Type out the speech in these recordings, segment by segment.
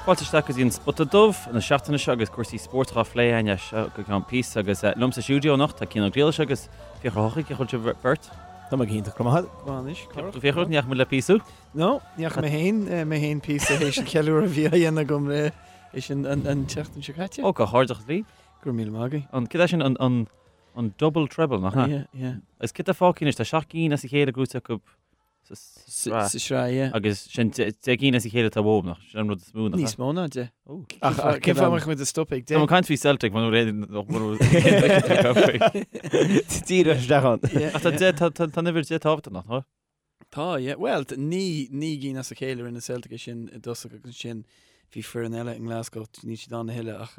Fáilte isteach go dtí an Spota Dubh na seachtaine seo agus cúrsaí spóirt á phlé againn as seo go ceann píosa agus liom sa stiúideo anocht tá Cian Ó Griallais agus Fiachra Ó hEochaidh, cén chaoi a bhfuil sibh beirt? Tá mé go hiontach, go maith. Go maith anois, Cárthach. Fiachra, ní fhaca muid le píosa? No, ní fhaca mé féin, mé féin píosa théis an cheiliúradh a bhí á dhéanamh agam le théis an an tseachtain seo caite. Ó, comhghairdeachas libh. Go raibh míle maith agaibh. An, cad é sin an, an, an double treble, nach ea? Yeah, yeah. Agus cad tá fágtha anois, tá 7 gcinn as a chéile gnóite acu sa sraith. Sa sraith, yeah. Agus sin 10 gcinn as a chéile atá uathu, nach sin an rud is mó, nach ea? Níos mó ná 10. Ach cén fáth a mbeadh muid ag stopadh ag 10? Tá mé ag caint faoi Celtic, mar Díreach isteach ann. Ach tá 10, tá tá an uimhir 10 tábhachtach, nach ea? Tá, yeah. Bhuel, 9 gcinn as a chéile rinne Celtic é sin i dtosach agus ansin bhí foireann eile i nGlasgow, níl siad ann a thuilleadh ach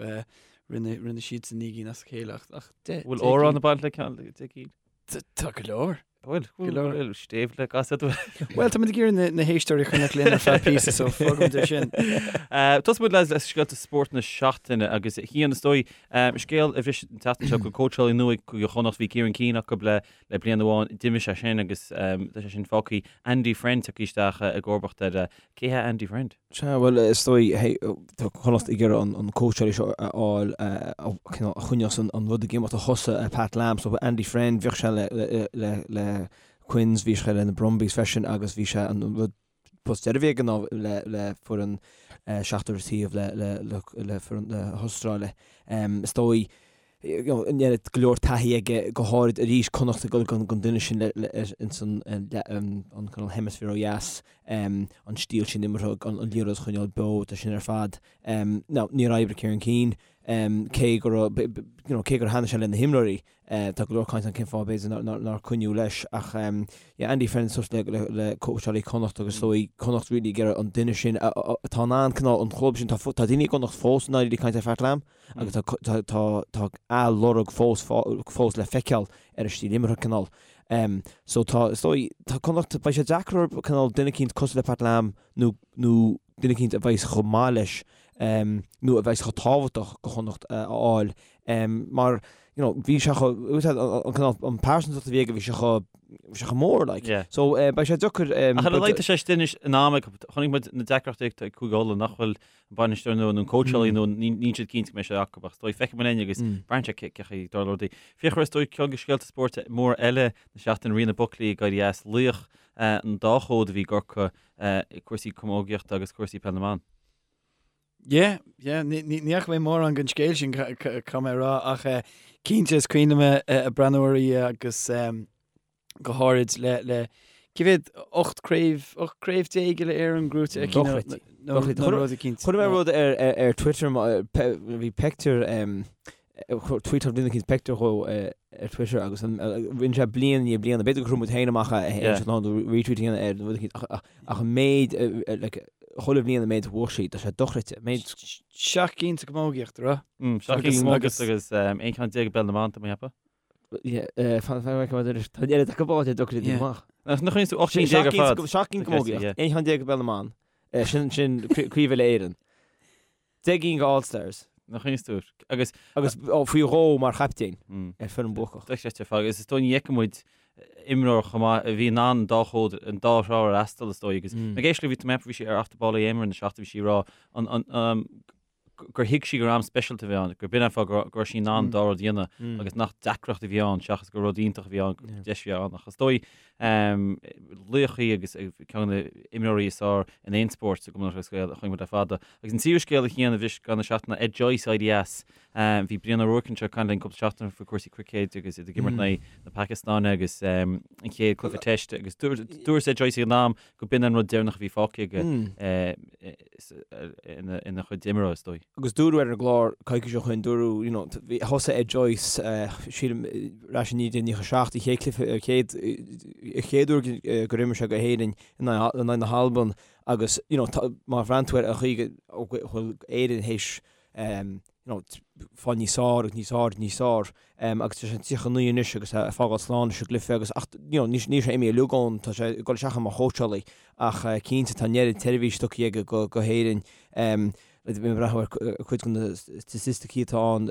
rinne rinne siadsan 9 gcinn as a chéile ach ach 10. Bhfuil amhrán ag baint le ceann 10 gcinn? Tá go leor. Bhfuil, Go leor. bhfuil, stéibh le gasad. Bhuel, tá muid ag iarraidh na héisteoirí a choinneáil linn ar feadh píosa, so fágfaimid é sin. Tosóidh muid le scéalta spóirt na seachtaine agus a Chian, is dóigh, scéal a bhris an tseachtain seo go cóitseálaí nua ag Cúige Chonnacht, bhí Kieran Keane acu le le bliain amháin, d'imigh sé sin agus tá sé sin fágtha. Andy Friend tagtha isteach i gcomharbacht air. Cé hé Andy Friend? Sea, bhuel, is dóigh, hey, tá Connacht ag iarraidh an cóitseálaí seo a fháil a cineál a choinneos an rud ag imeacht a thosaigh Pat Lam, so Andy Friend, bhíodh sé le, le, le, le Quins, bhí sé le na Brumbies freisin agus bhí sé an rud post deiridh a bhí aige ná le, le foireann seachtar taobh le, le, le, le foireann na hAstráile. Is dóigh, an oiread go leor taithí aige, go háirid arís Connacht ag dul don duine sin ins an cineál hemisphere ó dheas, an stíl sin imeartha, an liathróid a choinneáil beo, tá sin ar fad. Now, níor oibrigh Kieran Keane, cé go raibh, you know, cé gur thaitnigh sé le na himreoirí, tá go leor caint ann cén fáth b'fhéidir nár coinníodh leis ach yeah, Andy Friend suas le le cóitseálaí Connacht agus is dóigh Connacht really ag iarraidh an duine sin atá in ann cineál an chlub sin, tá daoine i gConnacht fós i ndáiríre ag caint ar Pat Lam, agus tá a lorg fós fós le feiceáil ar a stíl imeartha cineál. So tá, is dóigh, tá Connacht, beidh sé deacair orthu cineál duine eicínt cosúil le Pat Lam nó nó duine eicínt a bheas chomh maith leis nó a bheas chomh tábhachtach go Chonnacht a fháil mar you know bhí sé chomh, an cineál, an pearsantacht a bhí aige bhí sé chomh, bhí sé chomh mór like. Yeah. So beidh sé deacair. Ach ar a laghad tá sé anois in am ag, chonaic muid na deacrachtaí ag Cúige Uladh nach bhfuil an bainisteoir nua nó an cóitseálaí nua, níl siad cinnte go mbeidh sé acu ach is dóigh feicfidh muid linn agus braitheann sé cé chaoi a dtarlóidh rudaí. Fiachra, is dóigh ceann de scéalta spóirt móra eile na seachtaine, Ríona Buckley ag éirí as, laoch an dá chód a bhí i gCorcaigh i cúrsaí camógaíochta agus cúrsaí peil na mban. Yeah, yeah, ní fhaca mé mórán den scéal sin, caithfidh mé a rá, ach cinnte is cuimhin liom ag breathnú uirthi agus go háirid le le cé mhéad 18 craobh 18 craobh uile-Éireann gnóite aici nó Dochreidte. nó Dochreidte. nó rud eicínt. Chuir mé rud ar ar ar Twitter ma- pe- bhí pictiúr em, tweetáil duine eicínt pictiúr dhó eh, ar Twitter agus an- eh, rinne sé bliain i ndiaidh bliana b'fhéidir gur chuir muid féin amach é Yeah. é nó retweet a dhéanamh air nó rud eicínt ach ach ach an méid eh, eh, like, chuile bhliain an méid a bhuaigh sí tá sé dochreidte méid Seacht gcinn sa gcamógaíocht, an raibh? 7 Agus- gcinn agus agus um, 11 ceann i bpeil na mban, tá mé ag ceapadh. Tá an oiread acu báite dochreidte amach. Nach chuireann tú 18 cinn ar fad? 7 gcinn camógaíocht, 11 cheann i bpeil na mban, sin sin Craobh Uile-Éireann. 10 gcinn go All Stars. Nach chuireann tú agus agus faoi dhó mar chaptaen ar foireann buacach. Dochreidte ar fad agus is dóigh ní fheicfidh muid imreoir chomh maith a bhí in ann an dá chód an dá thrá a fhreastal is dóigh agus ag éisteacht léi bhí mé bhí sí ar Off the Ball AM na seachtaine bhí sí ag rá an gur thuig sí gur am speisialta a bhí ann, gur b'in an fáth go raibh sí in ann an dá rud a dhéanamh agus nach deacracht a bhí ann seachas gur rud iontach a bhí ann, gur deis a bhí ann. Ach is dóigh, laoch í agus ceann de na imreoirí is fearr in aon spórt sa gCumann Lúthchleas Gael a chonaic muid le fada. Agus an tríú scéal a Chian a bhris an tseachtain ná Ed Joyce ag éirí as. Bhí Brian Ó Ruairc anseo ag caint linn cúpla seachtain faoi chúrsaí cruicéid agus iad ag imirt in aghaidh na Pacastáine agus an chéad cluiche teist agus dúirt Ed Joyce ag an am go b'in an rud deireanach a bhí fágtha aige ina chuid imeartha, is dóigh. Agus dúradh ar an gclár coicís ó shoin, dúradh, you know, thosaigh Ed Joyce, sílim, ar ais i 1997, an chéad cluiche, an chéad, an chéad uair gur imir sé go hÉirinn in aghaidh na hAlban agus, you know, má bhreathnaíonn tú ar an chaoi go bhfuil Éirinn théis you know, fáil níos fearr agus níos fearr níos fearr agus tá sé 39 anois agus ag fágáil slán leis an gcluiche agus ach you know, níl sé imithe uilig ann, tá sé ag dul isteach mar chóitseálaí ach cinnte tá an oiread seirbhís tugtha aige go, go hÉirinn. Bhí mé ag breathnú ar cuid de na staitisticí atá ann.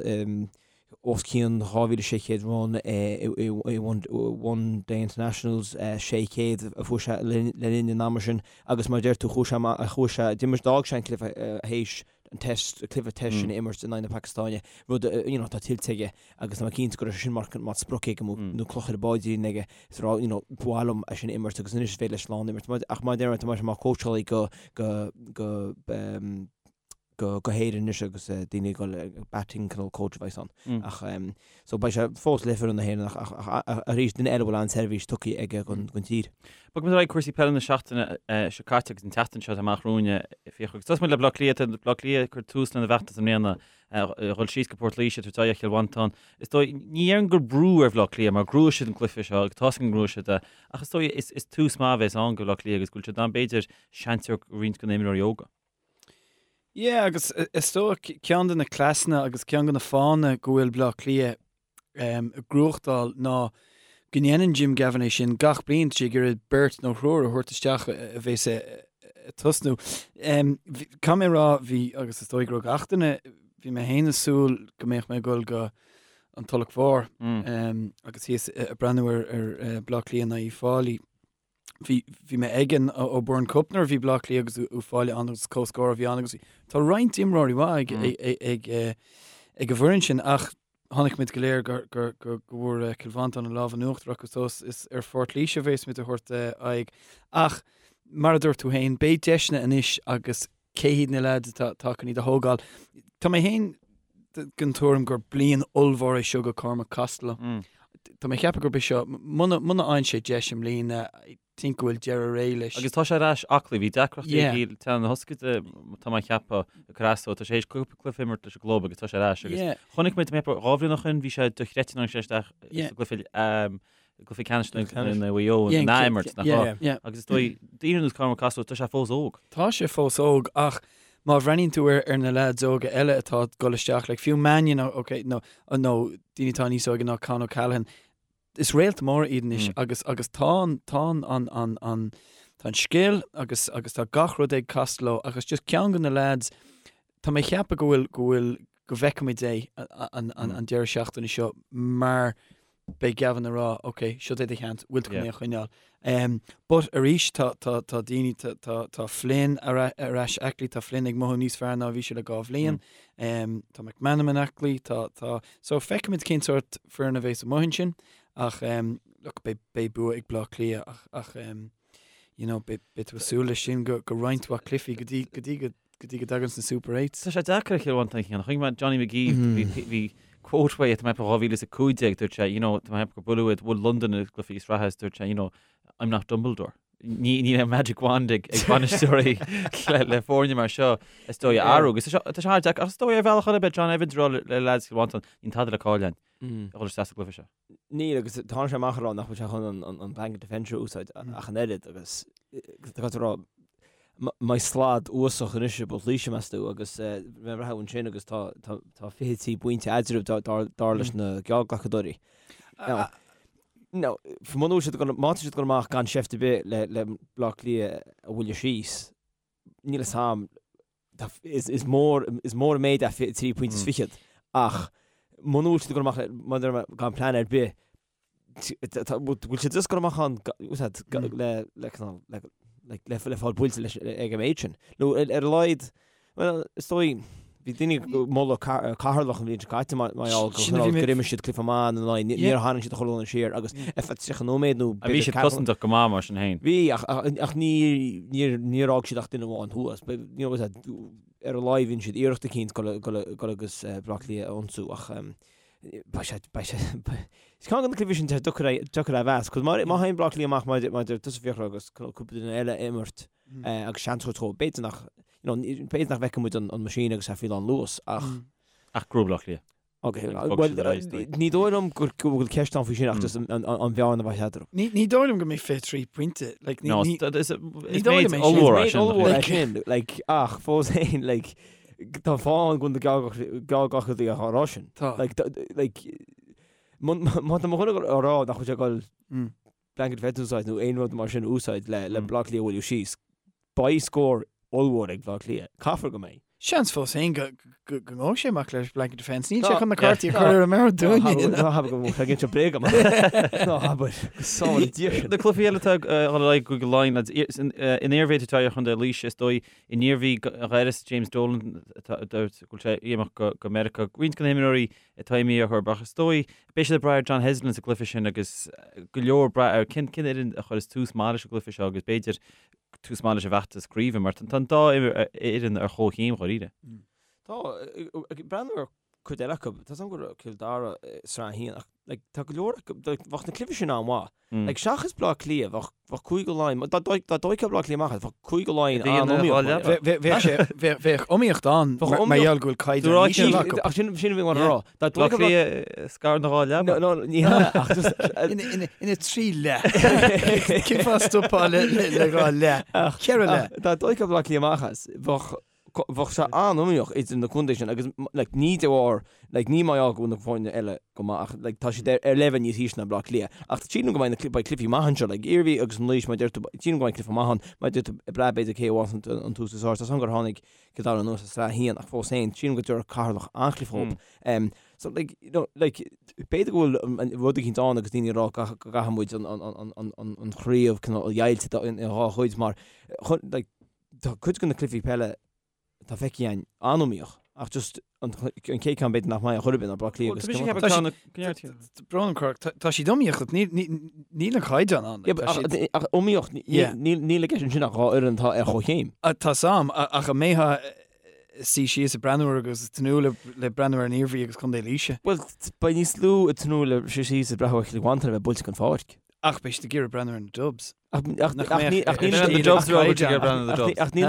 os cionn 2,600 run i One Day Internationals, 600 a fuair sé le linn an ama sin agus mar a deir tú chuaigh sé amach, chuaigh sé, d'imir, d'fhág sé an cluiche théis an test, cluiche test sin a imirt in aghaidh na Pacastáine, rud a, you know, atá tuillte aige agus tá mé cinnte go raibh sé sin mar, mar sprioc aige nó, nó cloch ar a bpaidrín aige is a rá, you know, ba mhaith liom é sin a imirt agus anois is féidir leis slán imirt. Ach mar a deir mé, tá sé mar cóitseálaí go, go, go, go go hÉirinn anois agus daoine ag dul batting cineál coach a bheas ann. Ach so beidh sé fós le foireann na hÉireann ach ach arís duine eile a bhfuil an-seirbhís tugtha aige don don tír. Bogfaidh muid ar aghaidh cúrsaí peile na seachtaine seo caite agus an tseachtain seo atá amach romhainn Fiachra. Agus tosóidh muid le Bleá Cliath, tá Bleá Cliath ag cur tús lena bhfeachtas i mbliana a dhul síos go Port Laoise tabhairt aghaidh ar Chill Mhantáin. Is dóigh, ní déarfainn gur brú ar Bhleá Cliath mar ghnóthaigh siad an cluiche seo agus tá's againn gur ghnóthaigh siad é ach is dóigh is is tús maith a bheas ann do Bhleá Cliath agus go bhfuil siad in ann b'fhéidir seans a thabhairt do roinnt de na himreoirí óga. Yeah, agus is dóigh ceann de na cleasanna agus ceann de na fáthanna go bhfuil Bleá Cliath ag gnóthachtáil ná go ndéanann Jim Gavin é sin gach bliain, tá sé ag iarraidh beirt nó thriúr a thabhairt isteach a bheas ag tosnú. Caithfidh mé a rá, bhí, agus is dóigh go raibh gach duine, bhí mé féin ag súil go mbeadh mé ag dul go an Tulach Mhór agus thíos ag breathnú ar Bleá Cliath in aghaidh Uíbh Fhailí. Bhí, bhí mé ag an O'Byrne Cup nuair a bhí Bleá Cliath agus Uíbh Fhailí ann agus comhscór a bhí ann agus tá roinnt imreoirí mhaith ag, ag, ag, ag, ag an bhfoireann sin ach chonaic muid go léir gur, gur, gur, go bhfuair Cill Mhantáin an lámh in uachtar acu so is ar Phort Laoise a bheas muid a thabhairt aghaidh. Ach mar a dúirt tú féin, beidh deiseanna anois agus cé hiad na leaids atá, atá chun iad a thógáil. Tá mé féin den tuairim gur bliain ollmhór é seo go Cormac Costello. Tá mé ag ceapadh gurb é seo, muna bhfaigheann sé deis i mbliana, I think go bhfuil deireadh ré leis. Agus tá sé ar ais aclaí, bhí deacrachtaí aige le teannán na hioscaide, tá mé ag ceapadh, ag cur as dó, tá sé théis cúpla cluiche a imirt leis an gclub agus tá sé ar ais agus chonaic muid, mé 2 bhliain ó shin, bhí sé dochreidte nuair a tháinig sé isteach sa gcluiche gcluiche ceannais na Mhaigh Eo in ath-imirt, nach raibh? Agus is dóigh, daoine ar nós Cormac Costello, tá sé fós óg. Tá sé fós óg ach má bhreathnaíonn tú ar na leaids óga eile atá ag dul isteach, like fiú Mannion, ok, nó nó daoine atá níos óige ná Con O'Callaghan, is réalta móra iad anois agus agus tá an tá an an an an tá an scil agus agus tá gach rud ag Costello agus just ceann de na leaids, tá mé ag ceapadh go bhfuil go bhfuil go bhfeicfimid é an an an deireadh seachtaine seo mar beidh Gavin ag rá, ok, seo é do sheans, bhfuil tú chun é a choinneáil. Um, but arís tá, tá, tá daoine, tá, tá, tá Flynn ar, ar ais aclaí, tá Flynn ag mothú níos fearr ná a bhí sé le 2 bhliain, um, tá McManamon aclaí, tá, tá, so feicfimid cén sórt foireann a bheas amuigh ansin, ach um, look, beidh, beidh bua ag Bleá Cliath ach, ach um, you know, beidh, beidh tú ag súil leis sin go, go roinnt mhaith cluichí go dtí, go dtí go, go dtí go dtagann na Super Eights. Tá sé deacair ar Chill Mhantáin a chinneadh. Chonaic mé Johnny McGee, bhí bhí quote uaidh, tá mé ag ceapadh 2015, dúirt sé, you know, tá mé ag ceapadh gur buaileadh iad, bhuail Londain i gcluichí sraithe is dúirt sé, you know, I'm not Dumbledore. Ní ní raibh magic wand ag ag bainisteoirí le le foirne mar seo is dóigh a athrú. Agus tá sé tá sé an-deacair. Ach is dóigh ar bhealach eile beidh John Evans ag rá le le lads Chill Mhantáin, níl tada le cailleadh againn a dhul isteach sa gcluiche seo. Níl, agus tháinig sé amach ag rá nach bhfuil sé chun an blanket defence a úsáid ach an oiread agus tá tú ag rá mbeidh slad uafásach anois i bPort Laoise meas tú agus bheith reatha ansin agus tá tá 23 bpointe eadraibh dar leis na geallghlacadóirí. Now, muna bhfuil siad má tá siad ag dul amach gan seift ar bith le le Bleá Cliath a bhualadh síos, níl a fhios a'm, is mór is mór an méid é 23 pointe is fichead ach muna bhfuil siad ag dul amach maidir le gan plean ar bith bhfuil siad just ag dul amach ann le le le le le fáil buailte leis ag an méid sin. Nó ar a laghad well is dóigh bhí daoine ag moladh Ceatharlach an bhliain seo caite mar gheall gur imir siad cluiche maith ina n-aghaidh níor tharraing siad a chuile dhuine siar agus ar feadh 30 nóiméad nó Bhí siad cosantach go maith mar sin féin. Bhí ach ach ní níor níor fhág siad ach duine amháin thuas. You know, ar a laghad bhí siad iarracht eicínt dul dul agus Bleá Cliath a ionsú ach beidh sé beidh sé Is ceann de na cluichí sin tá deacair deacair a mheas, 'cause má má théann Bleá Cliath amach mar mar tusa Fiachra agus cúpla duine eile a imirt agus seans a thabhairt dóibh, b'fhéidir nach you know, b'fhéidir nach bhfeicfidh muid an an machine agus é faoi lán luas ach Ach gnóthóidh Bleá Cliath. Ok, bhuel, ní dóigh liom go bhfuil ceist ann faoi sin ach just an bhearna a bheidh eatarthu. Ní dóigh liom go mbeidh 23 pointe. Like, ní, ní, is méid ollmhór é sin. Ollmhór é sin, like, ach fós féin, like, tá fáth ann go bhfuil na geallghlacadóirí á rá sin. Tá. Like, like, má tá mo dhuine á rá nach bhfuil sé ag dul blanket defence a úsáid nó aon rud mar sin a úsáid le le Bleá Cliath a bhualadh síos, beidh scór ollmhór ag Bleá Cliath. Caithfear go mbeidh. Seans fós féin go ngabhfaidh sé amach leis blanket defence. Níl sé chun na cártaí a chur ar an mbord dúinne. Ná habair go bhfuil sé ag inse bréag agam. Ná habair. Go sábhála Dia sinn. Na cluichí eile atá ag dul ar aghaidh i gCúige Laighean, lads, in Iarmhí atá ar Chontae Laoise, is dóigh, in Iarmhí dh'airios James Dolan go bhfuil sé ag imeacht go Meiriceá. Roinnt de na himreoirí atá imithe orthu, ach is dóigh, beidh siad ag brath ar John Heslin sa gcluiche sin agus go leor ag brath ar cén fhoireann a chuireas tús maith leis an gcluiche seo agus b'fhéidir tús maith leis an bhfeachtas craoibhe mar tá an dá fhoireann ar chomhchéim dháiríre. Tá, ag breathnú ar cuid eile acu, tá 's agam go raibh Cill Dara i Sraith 1 ach like, tá go leor acu, bheadh na cluichí sin an-mhaith. Like, seachas Bleá Cliath, bheadh, bheadh Cúige Laighean, dá dtóigfeá Bleá Cliath amach, bheadh Cúige Laighean an-iomaíoch. Bheadh iomaíocht ann mar gheall go bhfuil caighdeán íseal acu. Ach sin, sin a bhí mé a rá. Dá Bleá Cliath scartha ina dhá leaba. No, no, ní hea, ach just... Ina thrí leath. Cén fáth stopfá le dhá leath? Ceithre leath. Dá dtóigfeá Bleá Cliath amach as, bheadh, bheadh sé an-iomaíoch idir na contaetha sin agus like ní de bharr like ní mar gheall go bhfuil na foirne eile go maith ach like tá siad ar ar leibhéal níos ísle ná Bleá Cliath. Ach sílim go mbeidh na beidh cluichí maith anseo like Iarmhí agus an Laois mar a deir tú sílim go mbeidh cluiche maith ann mar a deir tú ag brath b'fhéidir cé a bhfuann an an tús is fearr. Tá 's agam gur tháinig Cill Dara anuas as Sraith 1 ach fós féin sílim go dtabharfadh Ceatharlach an-chluiche dhóibh. Um so like you know like b'fhéidir go bhfuil an rud eicínt ann agus daoine ag rá go gcaithfidh muid an an an an an an chraobh cineál a dheighilt i dhá chuid mar chun like Tá cuid de na cluichí peile atá feicthe againn an-iomaíoch ach just an chéad ceann b'fhéidir nach mbeidh ar chor ar bith ná Bleá Cliath agus Cill Mhantáin. Brón orm, tá siad iomaíoch ach níl an caighdeán ann. Ach iomaíoch, níl i gceist ansin ach dhá fhoireann atá ar chomhchéim. Tá 's a'm, ach an mbeifeá ag suí síos ag breathnú air agus ag tnúth le breathnú ar an Iarmhí agus Contae Laoise? Bhuel, beidh níos lú ag tnúth le suí síos ag breathnú ar Chill Mhantáin a bheith buailte den pháirc. Ach beidh siad ag iarraidh breathnú ar na Dubs. Ach níl na Dubs Ach níl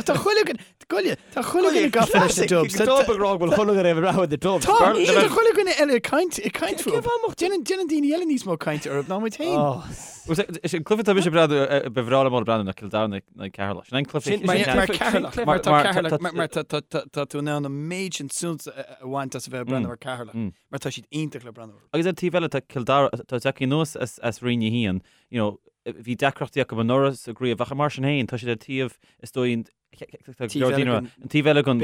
Tá chuile goile Tá chuile dhuine gafa leis na Dubs. Tá ag rá go bhfuil chuile dhuine ag breathnú ar na Dubs. Tá tá chuile dhuine eile ag caint ag caint fúthu. Déanann déanann daoine eile níos mó cainte orthu ná muid féin. Is an cluiche atá mise ag breathnú ba bhreá liom breathnú ná Cill Dara in aghaidh Ceatharlach. Sin an cluiche Mar mar Ceatharlach mar tá Ceatharlach mar tá tá tá tú in ann an méid sin suilt a bhaint as a bheith ag breathnú ar Ceatharlach mar tá siad iontach le breathnú orthu. Agus ar an taobh eile tá Cill Dara tá tagtha anuas as as Roinn 1 you know, bhí deacrachtaí acu anuraidh sa gcraobh ach mar sin féin tá siad ar taobh is dóigh an taobh eile den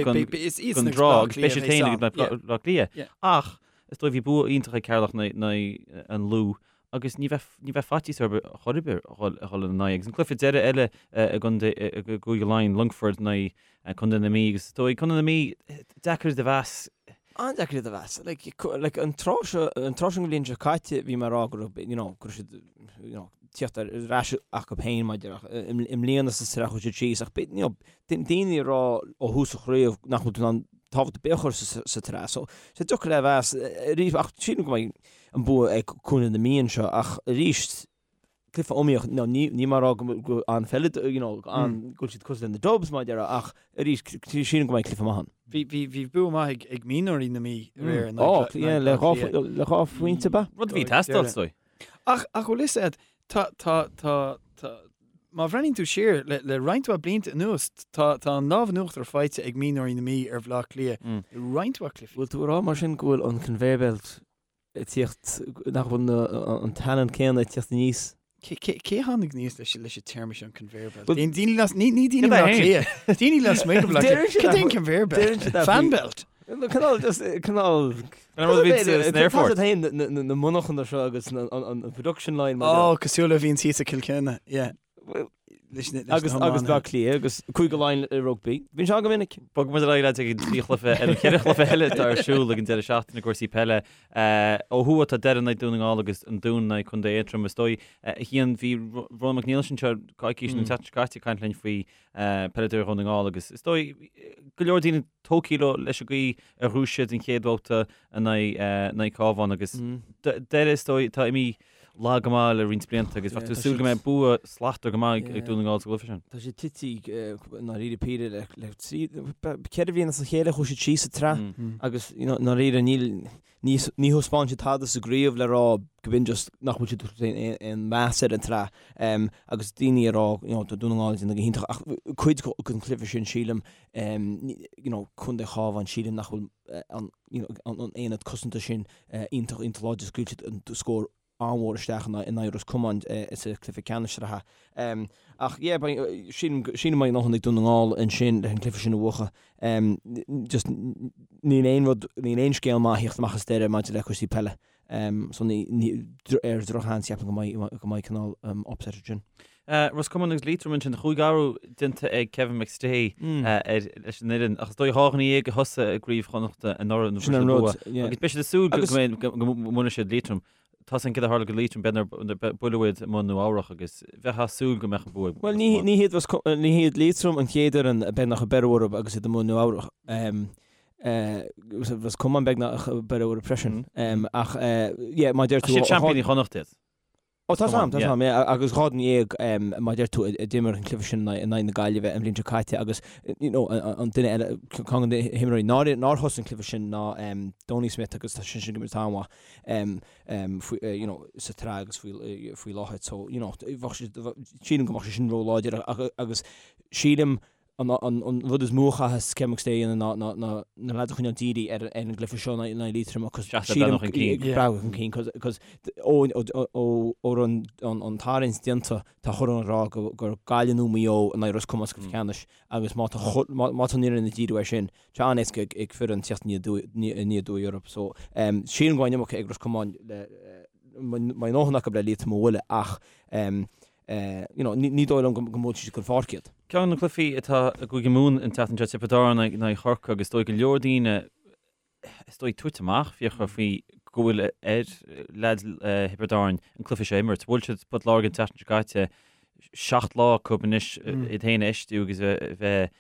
trá agus beidh siad féin ag Bleá Cliath. Ach is dóigh bhí bua iontach ag Ceatharlach in aghaidh an Lú agus ní bheadh ní bheadh faitíos orthu chor ar bith a dhul ina n-aghaidh. Agus an cluiche deiridh eile i gCúige Laighean, Longfort in aghaidh Contae na Mí agus is dóigh Contae na Mí deacair iad a mheas. An-deacair iad a mheas. Like, like an tráth seo, an tráth seo den bhliain seo caite bhí mé ag rá go raibh, you know, go raibh siad, you know, tíocht ar ais acu féin maidir ach i mbliana sa tsraith chuaigh siad síos ach you know, daoine ag rá ó thús an chraobh nach bhfuil tú in ann tábhacht ar bith a chur sa, sa tsraith. So, sé deacair le mheas arís ach sílim go mbeidh an bua ag Contae na Mí anseo ach arís cluiche iomaíoch, no, ní, ní mar rá go, go an-pheile, you know, an, go bhfuil siad cosúil le na Dubs, mar a déarfá, ach arís, sílim go mbeidh cluiche maith ann. Bhí, bhí, bhí bua maith ag, ag mionúirí na Mí aréir in aghaidh Ó, yeah, le dhá, le dhá phointe ab ea? Rud a bhí ag teastáil, is dóigh. Ach, ach bhfuil fhios a'd, tá, tá, tá, tá, má bhreathnaíonn tú siar le, le roinnt mhaith blianta anuas, tá, tá an lámh in uachtar faighte ag mionúirí na Mí ar Bhleá Cliath i roinnt mhaith cluichí. Bhfuil tú ag rá mar sin go bhfuil an conveyor belt ag tíocht, nach bhfuil an talent céanna ag tíocht aníos. Cé a tháinig aníos leis leis an téarma seo an conveyor belt? Daoine las, ní ní daoine Bleá Cliath. Daoine lasmuigh de Bhleá Cliath. Cad é an conveyor belt? Fan belt? Cineál just cineál An rud a bhíonn san aerfort. Tá féin na monarchana seo agus an production line. Ó, cosúil le bhíonn thíos i Cill Chainnigh, yeah. Leis na Agus agus Bleá Cliath agus Cúige Laighean i rugbaí. Bíonn sé an go minic. Bogfaidh muid ar aghaidh leat ag an trí chluiche ar an cheithre chluiche eile atá ar siúl ag an deireadh seachtaine i gcúrsaí peile. Ó thuaidh tá Doire in aghaidh Dún na nGall agus an Dún in aghaidh Contae Aontroim. Is dóigh, a Chian, bhí Ronan Mac Niallais anseo coicís nó an tseachtain seo caite ag caint linn faoi peileadóirí Dhún na nGall agus is dóigh go leor daoine tógtha leo leis an gcaoi ar ghnóthaigh siad an chéad bhabhta in aghaidh Cabhán agus Doire is dóigh atá imithe lag go maith le roinnt blianta agus bheadh tú ag súil go mbeidh bua slachtmhar go maith ag Dún na nGall sa gcluiche sin. Tá siad tite i ndáiríre píre le le trí, ceithre bhliain as a chéile chuaigh siad síos sa tsraith agus i ndáiríre níl, ní ní thaispeáin siad tada sa gcraobh le rá go b'in just nach bhfuil siad ag aon meas ar an tsraith agus daoine ag rá you know tá Dún na nGall ag déanamh go hiontach ach cuid den chluiche sin sílim you know Contae Chábháin sílim nach bhfuil an you know an aonad cosanta sin iontach iontach láidir scaoil siad an scór. an-mhór isteach in aghaidh Ros Comáin sa chluiche ceannais sraithe. Ach yeah, sílim go mbeidh a ndóthain ag Dún na nGall ansin leis an gcluiche sin a bhuachan. Just níl aon rud, níl aon scéal maith a thíocht amach as Doire maidir le cúrsaí peile. So ní, ar dhrochsheans ceapaim go mbeidh, go mbeidh cineál upset ansin. Ros Comáin agus Liatroim ansin, chúig athrú déanta ag Kevin McStay ar leis an fhoireann ach is dóigh 12 a thosaigh i gCraobh Chonnachta anuraidh Sin an rud, yeah. Agus beidh siad ag súil go go mbuailfidh siad Liatroim. Tá san céard a tharla go Liatroim b'fhéidir buaileadh iad i mbun Nua Eabhrach agus bheifeá ag súil go mbeadh an bua ag Bhuel ní ní hiad ní hiad Liatroim an chéad fhoireann beagnach a beireadh orthu agus iad i mbun Nua Eabhrach. Ros Comáin beagnach a beireadh orthu freisin. Ach yeah má deir tú Siad seaimpíní Chonnacht iad. Ó tá 's a'm, tá 's a'm, yeah, agus 12 mar a deir tú a d'imir an cluiche sin in aghaidh na Gaillimhe an bhliain seo caite agus you know an duine eile, ceann de na himreoirí nár nár thosaigh an cluiche sin ná Donie Smith agus tá seisean ag imirt an-mhaith faoi you know sa tsraith agus faoi faoi láthair so you know bheadh sé sílim go mbeadh sé sin ró-láidir agus sílim An rud is mó a chaithfeas Kevin McStay a dhéanamh ná na leaids a choinneáil dírithe ar an gcluiche seo in aghaidh Liatroim cos sílim breathnú chun cinn cos ó raibh an tarraingt déanta tá chuile dhuine ag rá gur Gaillimh nó Maigh Eo in aghaidh Ros Comáin sa gcluiche ceannais agus má tá má tá an fhoireann ag díriú air sin tá an-éasca ag foireann teacht aniar aduaidh orthu so sílim go mbeidh an iomarca ag Ros Comáin le mbeidh a ndóthain acu le Liatroim a bhualadh ach you know, ní dóigh liom go mbuailfidh siad chun páirce iad. Ceann de na cluichí atá i gCúige Mumhan an tseachtain seo, Tiobraid Árann in aghaidh Chorcaí agus is dóigh go leor daoine, is dóigh, tuite amach, Fiachra, faoi go bhfuil ar leaids Thiobraid Árann an cluiche seo a imirt. Bhuail siad Port Láirge an tseachtain seo caite, 7 lá acu anois iad féin a fheistiú agus a bheith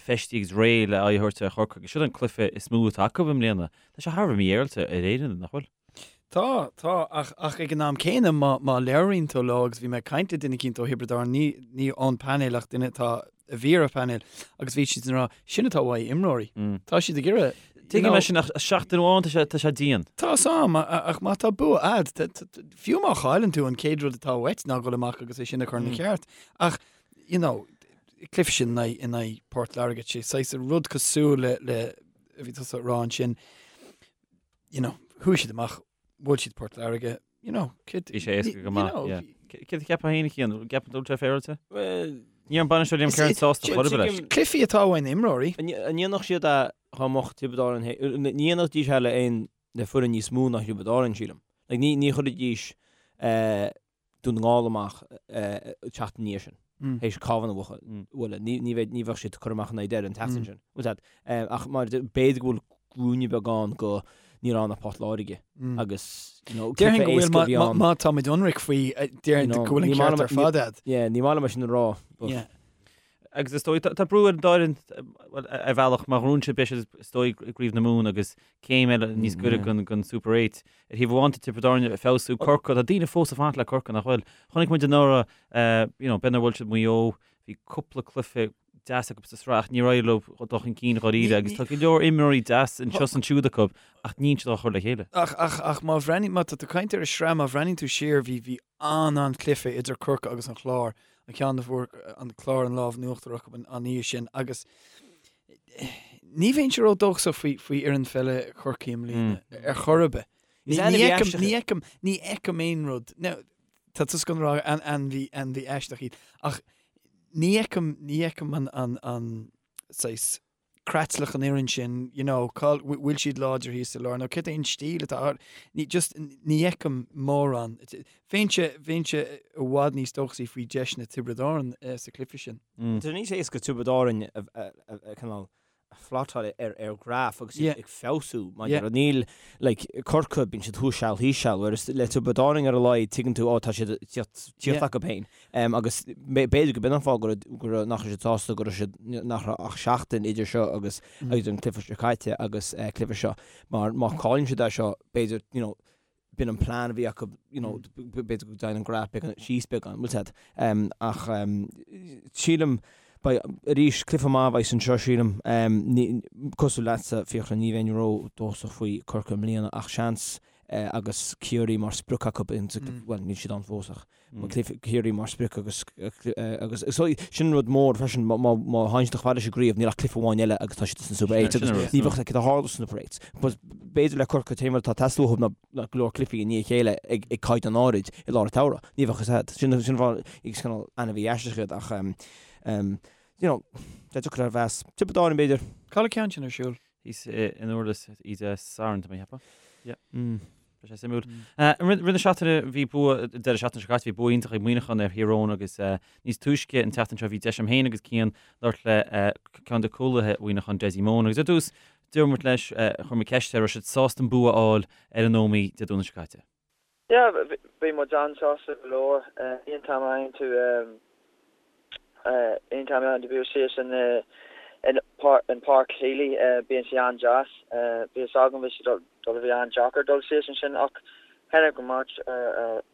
feistithe agus réidh le aghaidh a thabhairt ar Chorcaigh agus seo an cluiche is mó atá acu i mbliana. Tá sé thar a bheith mífhéaráilte ar Éirinn, nach bhfuil? Tá, tá, ach, ach ag an am céanna, má, má labhraíonn tú leo, agus bhí mé ag caint le duine eicínt ó Thiobraid Árann, ní, ní ón painéal ach duine atá, a bhí ar an phainéal, agus bhí siad ag rá, sin atá uaidh imreoirí. Tá siad ag iarraidh, you Tuigim know, é sin ach seachtain amháin tá sé, tá sé dian. Tá 's a'm, ach má tá bua a'd, fiú má chailleann tú an chéad rud atá uait ná dhul amach agus é sin a chur ina cheart. Ach, you know, cluiche sin in aghaidh, in aghaidh Port Láirge, sé saghas rud cosúil le, le, a bhí tusa ag rá ansin, you know, chuaigh siad amach, bhuail siad Port Láirge, you know, céard... Bhí sé éasca go maith, yeah. Céard a cheapfá féin, a Chian? Gceapann tú go bhfuil sé féaráilte? Well... Ní raibh an bainisteoir Liam Kerins sásta chor ar bith leis. Cluichí atá uaidh na imreoirí. An ndéanfadh siad é dá mbeadh Tiobraid Árann, ní dhéanfaidís é le aon, le foireann níos mó ná Thiobraid Árann, sílim. Like, ní, ní chuirfidís, eh, Dún na nGall amach seachtain ina dhiaidh sin, théis Cabhán a bhualadh. Ní bheidh, ní bheadh siad curtha amach in aghaidh Doire an tseachtain sin. Bhfuil fhios a'd? Ach mar b'fhéidir go bhfuil ruainne beag ann go ní raibh ann ach Port Láirge agus, you know, Déarfainn go bhfuil, má, má táimid ionraic faoi, déarfainn go bhfuil an ceart ar fad a'd. Yeah, ní maith liom é sin a rá, but. Yeah. Agus is dóigh, tá brú ar an dá fhoireann, bhuel, ar bhealach, má ghnóthaíonn siad, beidh siad, is dóigh, i gCraobh na Mumhan agus céim eile níos gaire don Super 8. Ar thaobh amháin, tá Tiobraid Árann ag feabhsú, Corcaigh, tá daoine fós ag fanacht le Corcaigh, nach bhfuil? Chonaic muid anuraidh, you know, b'fhéidir nár bhuail siad Maigh Eo, bhí cúpla cluiche deas acu sa sraith ach níor éirigh leo dul chun cinn dháiríre agus tá go leor imreoirí deas anseo is ansiúd acu ach níl siad á chur le chéile. Ach, ach, ach má bhreathnaíonn, má tá tú ag caint ar an sraith, má bhreathnaíonn tú siar, bhí, bhí an-an-chluiche idir Corcaigh agus an Clár, an ceann a bhfuair an Clár an lámh in uachtar acu an oíche sin agus ní bheinnse ródhóchasach faoi faoi fhoireann pheile Chorcaí i mbliana ar chor ar bith. Ní fheicim, ní fheicim, ní fheicim aon rud. Now, tá tusa ag rá ainmhí, ainmhí aisteach iad ach ní fheicim, ní fheicim an, an, an saghas creatlach an fhoireann sin, you know, cá bhfuil siad láidir thíos sa lár nó cad é an stíl atá ar, ní, just, ní fheicim mórán. Bheinnse, bheinnse i bhfad níos dóchasaí faoi deiseanna Tiobraid Árann sa chluiche sin. Tá sé níos éasca Tiobraid Árann a, a, a, a, cineál a phlotáil ar, ar ghraf agus iad ag feabhsú mar yeah. níl, like, Corcaigh, bíonn siad thuas seal thíos seal, whereas le Tiobraid Árann ar a laghad tuigeann tú, ó tá siad ag tíocht, tíocht acu féin. Agus b'fhéidir go b'in an fáth go raibh, nach raibh siad sásta go raibh siad, nach raibh ach seachtain idir seo agus idir an cluiche seo caite agus cluiche seo. Mar má chailleann siad é seo, b'fhéidir, you know, b'in an plean a bhí acu, you know, b'fhéidir go dtéann an graf beagán síos beagán, bhfuil fhios a'd. Ach sílim, beidh, arís, cluiche maith a bheas anseo, sílim. Cosúil leatsa, Fiachra, ní bheinn ró-dóchasach faoi Corcaigh i mbliana ach seans. agus Ciarraí mar sprioc acu, bhuel níl siad ann fós ach Ciarraí mar sprioc agus agus sin rud mór freisin má théann siad chomh fada leis an gcraobh níl ach cluiche amháin eile agus tá siad sna Super 8 agus ní bheadh cad a tharla sna Super 8. B'fhéidir le Corcaigh an t-aon rud atá ag teastáil uathu ná go leor cluichí i ndiaidh a chéile ag caighdeán áirid i lár an tsamhraidh. Ní bheadh fhios agat. Sin an fáth is cineál ainmhí aisteach iad ach you know, tá deacair a mheas. Tiobraid Árann b'fhéidir. Cá bhfuil an ceann sin ar siúl? Thíos in Durlas Dé Sathairn, tá mé ag ceapadh. Yeah. Beidh sé suimiúil. Rith na seachtaine bhí bua, deireadh seachtaine seo caite, bhí bua iontach ag Muineachán ar Thír Eoghain agus níos túisce an tseachtain seo bhí deis agam féin agus Cian labhairt le ceann de chúlaithe Mhuineacháin, Dessie Mone agus ar dtús dúirt muid leis, chuir muid ceist air, raibh siad sásta an bua a fháil ar an Ómaigh Dé Domhnaigh seo caite. Yeah, bhí muid an-sásta go leor. Aon t-am a fhaigheann tú, aon t-am a fhaigheann tú bua síos in in Páirc Healy, bíonn sé an-deas. Bhí fhios agam bhí sé dul a bheith an-deacair dul síos ansin ach tháinig muid,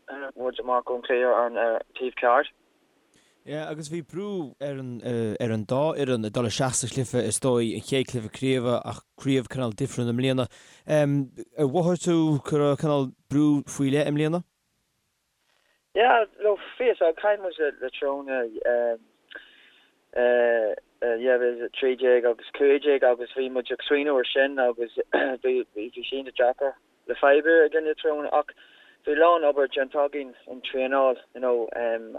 tháinig muid amach ón chluiche ar an taobh ceart. Yeah, agus bhí brú ar an, ar an dá fhoireann ag dul isteach sa chluiche, is dóigh, an chéad chluiche craoibhe ach craobh cineál difriúil i mbliana. Ar mhothaigh tú go raibh cineál brú faoi leith i mbliana? Yeah, no, bhí fhios ag, chaill muid le Tyrone eh, 2013 agus 15 agus bhí muid ag smaoineamh ar sin agus bhí, bhí sé iontach deacair. le fadhb i gcoinne Tyrone ach bhí a lán obair déanta againn in traenáil you know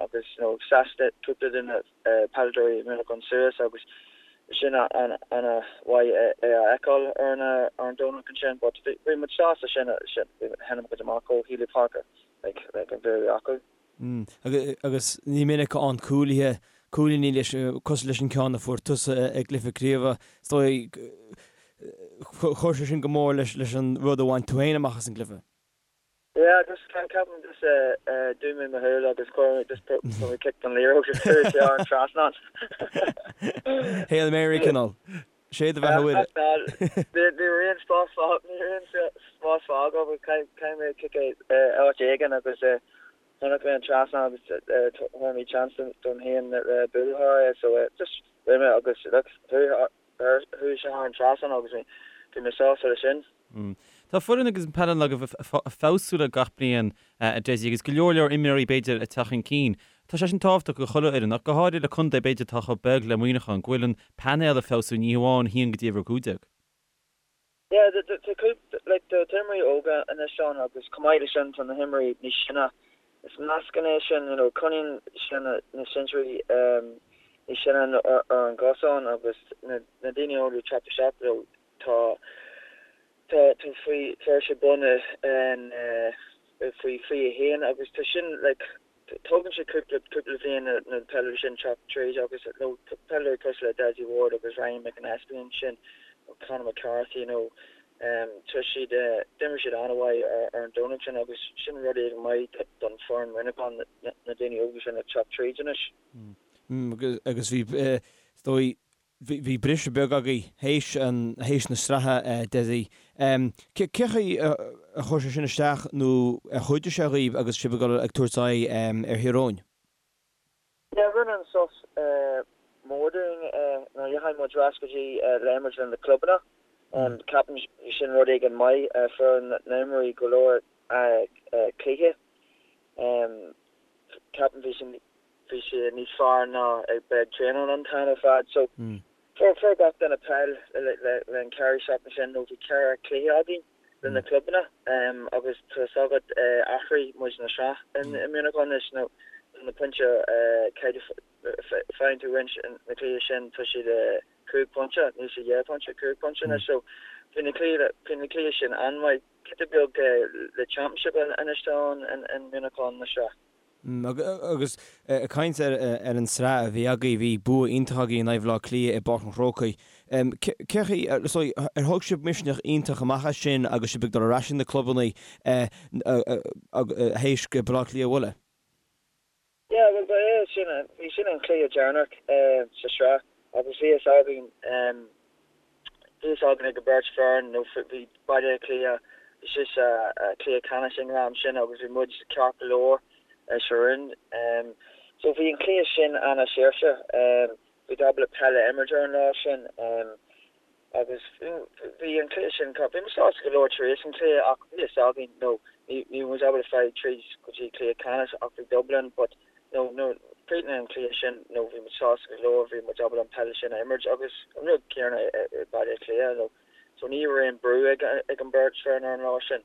agus you know sheas cúpla de na peileadóirí Muineachán suas agus sin an ana mhaith é a fheiceáil ar an ar an Domhnach ansin but bhí muid sásta sin sin tháinig muid amach ó Healy Park like like an bua acu. Agus ní minic a fhaigheann cúlaithe cúilíní leis cosúil leis an ceann a fuair tusa i gcluiche craoibhe. Is dóigh chuir sé sin go mór leis leis an rud a bhain tú féin amach as an gcluiche. Yeah, just ceapaim just dhún mé mo shúil agus chuir mé just chuir mé cic don liathróid agus chuaigh sé thar an trasnán. Hail Mary cineál. Sé do bheatha Mhuire. Ní raibh aon spás ní raibh aon spás fágtha agus caithfidh mé cic áit éigin agus chonaic mé an trasnán agus thug mé chance dom féin le bualadh thar é so just rith mé agus look chuaigh sé thar an trasnán agus bhí mé sásta leis sin. Tá foireann agus an peil agaibh ag feabhsú le gach bliain, a Dessie, agus go leor leor imreoirí b'fhéidir ag teacht chun cinn. Tá sé sin tábhachtach do chuile fhoireann, ach go háirithe le contae b'fhéidir atá chomh beag le Muineachán, go bhfuil an painéal ag feabhsú, ní hamháin 1 go dtí uimhir 15. Yeah, tá cúpla, like, tá imreoirí óga anois ann agus chomh maith leis sin tá na himreoirí níos sine. Is meascán é sin, you know, coinníonn sin na sinsearaí níos sine ar an gcosán agus na daoine óga ag teacht isteach, you know, Tá tá tá faoi fuair sé bonn in faoi 21 agus tá sin like tógann sé cúpla cúpla bhliain na na peileadóirí sin teacht tríd agus you know peileadóirí cosúil le Dessie Ward agus Ryan McAnespie ansin Conor McCarthy you know tá siad d'imir siad an-mhaith ar ar an Domhnach sin agus sin rud éigin maith don foireann Muineachán na na daoine óga sin ag teacht tríd anois. Agus bhí is dóigh Bhí briseadh beag agaibh théis théis na sraithe, Dessie. Cé chaoi a chuir sé sin isteach nó ar chuidigh sé dhaoibh agus sibh ag dul ag tabhairt aghaidh ar Thír Eoghain? Yeah, rinne an sos mór dúinn nuair a dheachaigh muid ar ais go dtí le imirt le na clubanna. Ceapaim sin rud éigin maith, fuair na himreoirí go leor cluiche. Ceapaim bhí sin bhí sé níos fearr ná ag bheith ag traenáil an t-am ar fad. So fuair fuair gach duine peil le le le an ceithre seachtain sin nó bhí ceithre chluiche againn le na clubanna agus tá fhios agat athraigh muid na sraith in i Muineachán anois nó na pointe faigheann tú roinnt na cluiche sin tá siad 5 pointe níl sé 2 pointe 5 pointe anois so bhí na cluiche bhí na cluiche sin an-mhaith giota beag le championship anois tá ann in Muineachán na sraith. Agus ag caint ar an tsraith a bhí agaibh, bhí bua iontach agaibh in aghaidh Bhaile Átha Cliath i bPáirc an Chrócaigh. Cé chaoi, ar thóg sibh misneach iontach amach as sin agus sibh ag dul ar ais ag na clubanna théis Baile Átha Cliath a bhualadh? Yeah, bhuel ba é sin, bhí sin an cluiche deireanach sa sraith agus bhí fhios againn, bhí fhios againn ag an beirt foireann nó bhí Baile Átha Cliath, bhí siad sa cluiche ceannais ag an am sin agus bhí muid ceart go leor sa roinn. So bhí an cluiche sin ana-saoirse, bhí ábalta peil a imirt ar an lá sin agus. agus bhí an cluiche sin, bhí muid sásta go leor tar éis an cluiche ach bhí fhios againn, you know, ní raibh muid ábalta fáil tríd go dtí cluiche ceannais ach bhí Dublin but, you know, nuair chríochnaigh an cluiche sin, you know, bhí muid sásta go leor, bhí muid ábalta an peil sin a imirt agus an rud céanna i Baile Átha Cliath, you know, so ní raibh aon brú ag an beirt foireann ar an lá sin.